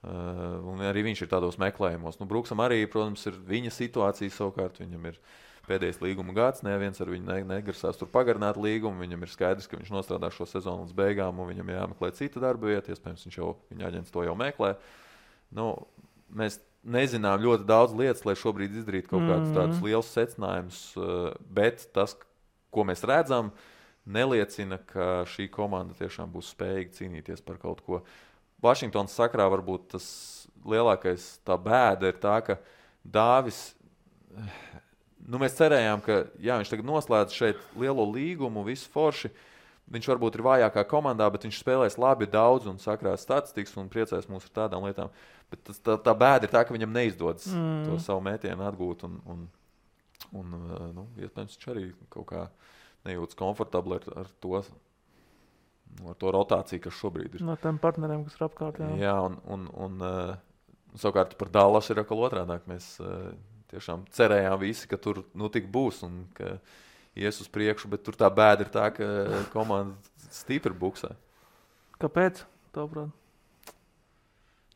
Un arī viņš ir tādos meklējumos. Bruksam arī, protams, ir viņa situācija savukārt. Viņam ir pēdējais līguma gads, neviens ar viņu negrasās tur pagarināt līgumu. Viņam ir skaidrs, ka viņš nostrādā šo sezonu līdz beigām, un viņam jāmeklē cita darba vieta. Iespējams, viņa aģents to jau meklē. Mēs nezinām ļoti daudz lietas, lai šobrīd izdarītu kaut kādus tādus lielus secinājumus, bet tas, ko mēs redzam, neliecina, ka šī komanda tiešām būs spējīga cīnīties par kaut ko. Vašingtonas sakrā varbūt tas lielākais tā bēda ir tā, ka Dāvis, mēs cerējām, ka viņš tagad noslēdz šeit lielo līgumu, visu forši. Viņš varbūt ir vājākā komandā, bet viņš spēlēs labi daudz un sakrās statistikas un priecēs mūs ar tādām lietām. Bet tā bēda ir tā, ka viņam neizdodas to savu mētienu atgūt. Iespējams, viņš arī kaut kā nejūtas komfortabli ar to rotāciju, kas šobrīd ir. No tiem partneriem, kas ir apkārt. Jā, un savukārt par Dallas ir atkal otrādāk. Mēs tiešām cerējām visi, ka tur tik būs un ka ies uz priekšu, bet tur tā bēda ir tā, ka komanda stipri buksē. Kāpēc? Tavuprāt?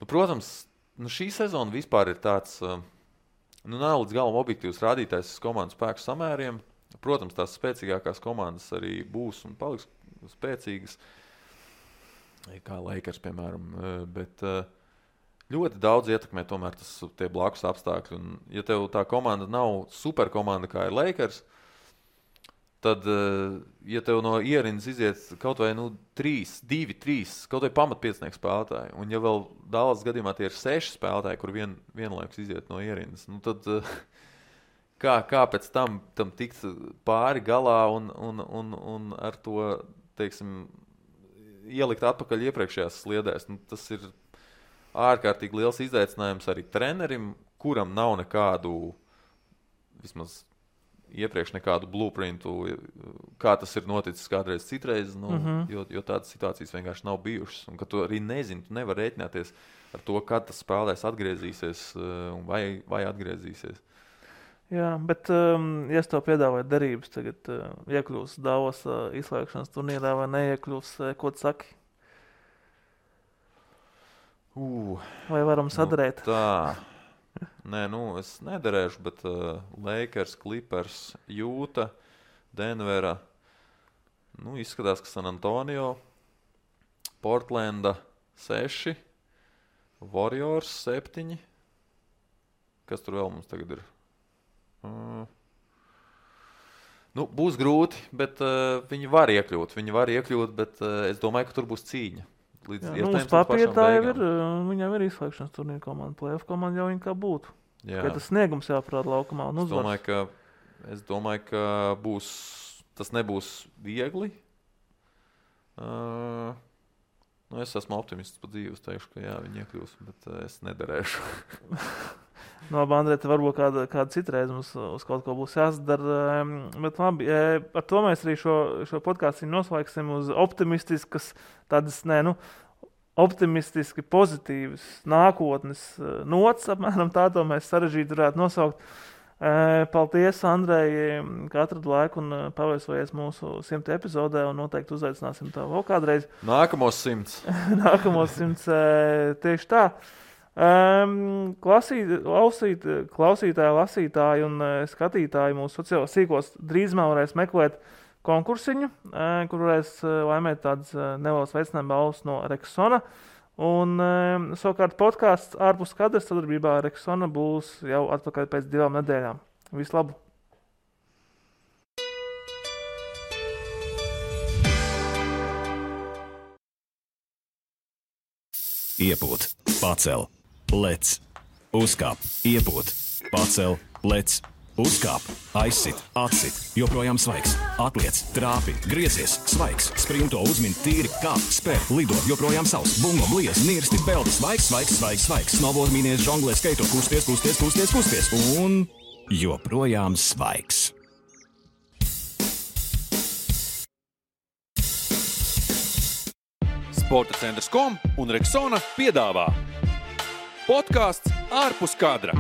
Protams, šī sezona vispār ir tāds, nav līdz galam objektīvs rādītājs komandas spēku samēriem. Protams, tās spēcīgākās komandas arī būs un paliks spēcīgas, kā Lakers, piemēram, bet ļoti daudz ietekmē tomēr tie blakus apstākļi. Un, ja tev tā komanda nav superkomanda, kā ir Lakers, tad, ja tev no ierindas iziet kaut vai 2-3, kaut vai pamatpiecnieku spēlētāji, un ja vēl Dallas gadījumā tie ir 6 spēlētāji, kur vienlaikus iziet no ierindas, tad kā pēc tam tikt pāri galā un ar to, teiksim, ielikt atpakaļ iepriekšējās sliedēs. Tas ir ārkārtīgi liels izaicinājums arī trenerim, kuram nav nekādu, vismaz iepriekš nekādu blueprintu, kā tas ir noticis kādreiz citreiz, jo tādas situācijas vienkārši nav bijušas. Un ka tu arī nezini, tu nevar rēķināties ar to, kad tas spēlēs atgriezīsies un vai atgriezīsies. Jā, bet ja es tev piedāvāju derības, tagad iekļūs Davos izslēgšanas turnīrā vai neiekļūs, ko tu saki? Vai varam sadarēt? Tā. Nē, es nederēšu, bet Lakers, Clippers, Jūta, Denvera, izskatās, ka San Antonio, Portlanda 6, Warriors 7. Kas tur vēl mums tagad ir? Būs grūti, bet viņi var iekļūt, bet es domāju, ka tur būs cīņa. Uz papīra tā jau ir, viņam ir izslēgšanas turnīra komanda, playoff komanda jau viņa kā būtu. Ka tas sniegums jāparāda laukumā un uzvars. Es domāju, ka tas nebūs viegli. Es esmu optimists pa dzīvi, es teikšu, ka viņi iekļūs, bet es nederēšu. Andrej, te varbūt kāda citreiz mums uz kaut ko būs jāsadara, bet labi, ar to mēs arī šo podkāstu noslēgsim uz optimistiskas, tādas, optimistiski pozitīvas nākotnes nots, apmēram tā to mēs sarežģīti varētu nosaukt. Paldies, Andrej, ka atradu laiku un paviesojies mūsu 100 epizodē un noteikti uzaicināsim tev vēl kādreiz. Nākamos 100. Nākamos 100, tieši tā. Klausītāji, lasītāji un skatītāji mūsu sociālos sīkos drīzumā varēs meklēt konkursiņu, kur varēs laimēt tādas nelielas veicinājuma balvas no Rexona. Un savukārt podcasts ārpus kadras sadarbībā ar Rexona būs jau atpakaļ pēc 2 nedēļām. Vislabāk! Iepūt, pacel, lec, uzkāp, iepūt, pacel, lec, uzkāp, aizsit, atsit, joprojām svaigs, atliec, trāpi, griezies, svaigs, sprinto, uzmin, tīri, kāp, spēr, lido, joprojām savs, bungo, bliez, nirsti, peldi, svaigs, svaigs, svaigs, svaigs, snowboard, mīnies, žonglē, skaito, kusties, un joprojām svaigs. Sporta centrs.com un Rexona piedāvā podcasts ārpus kadra.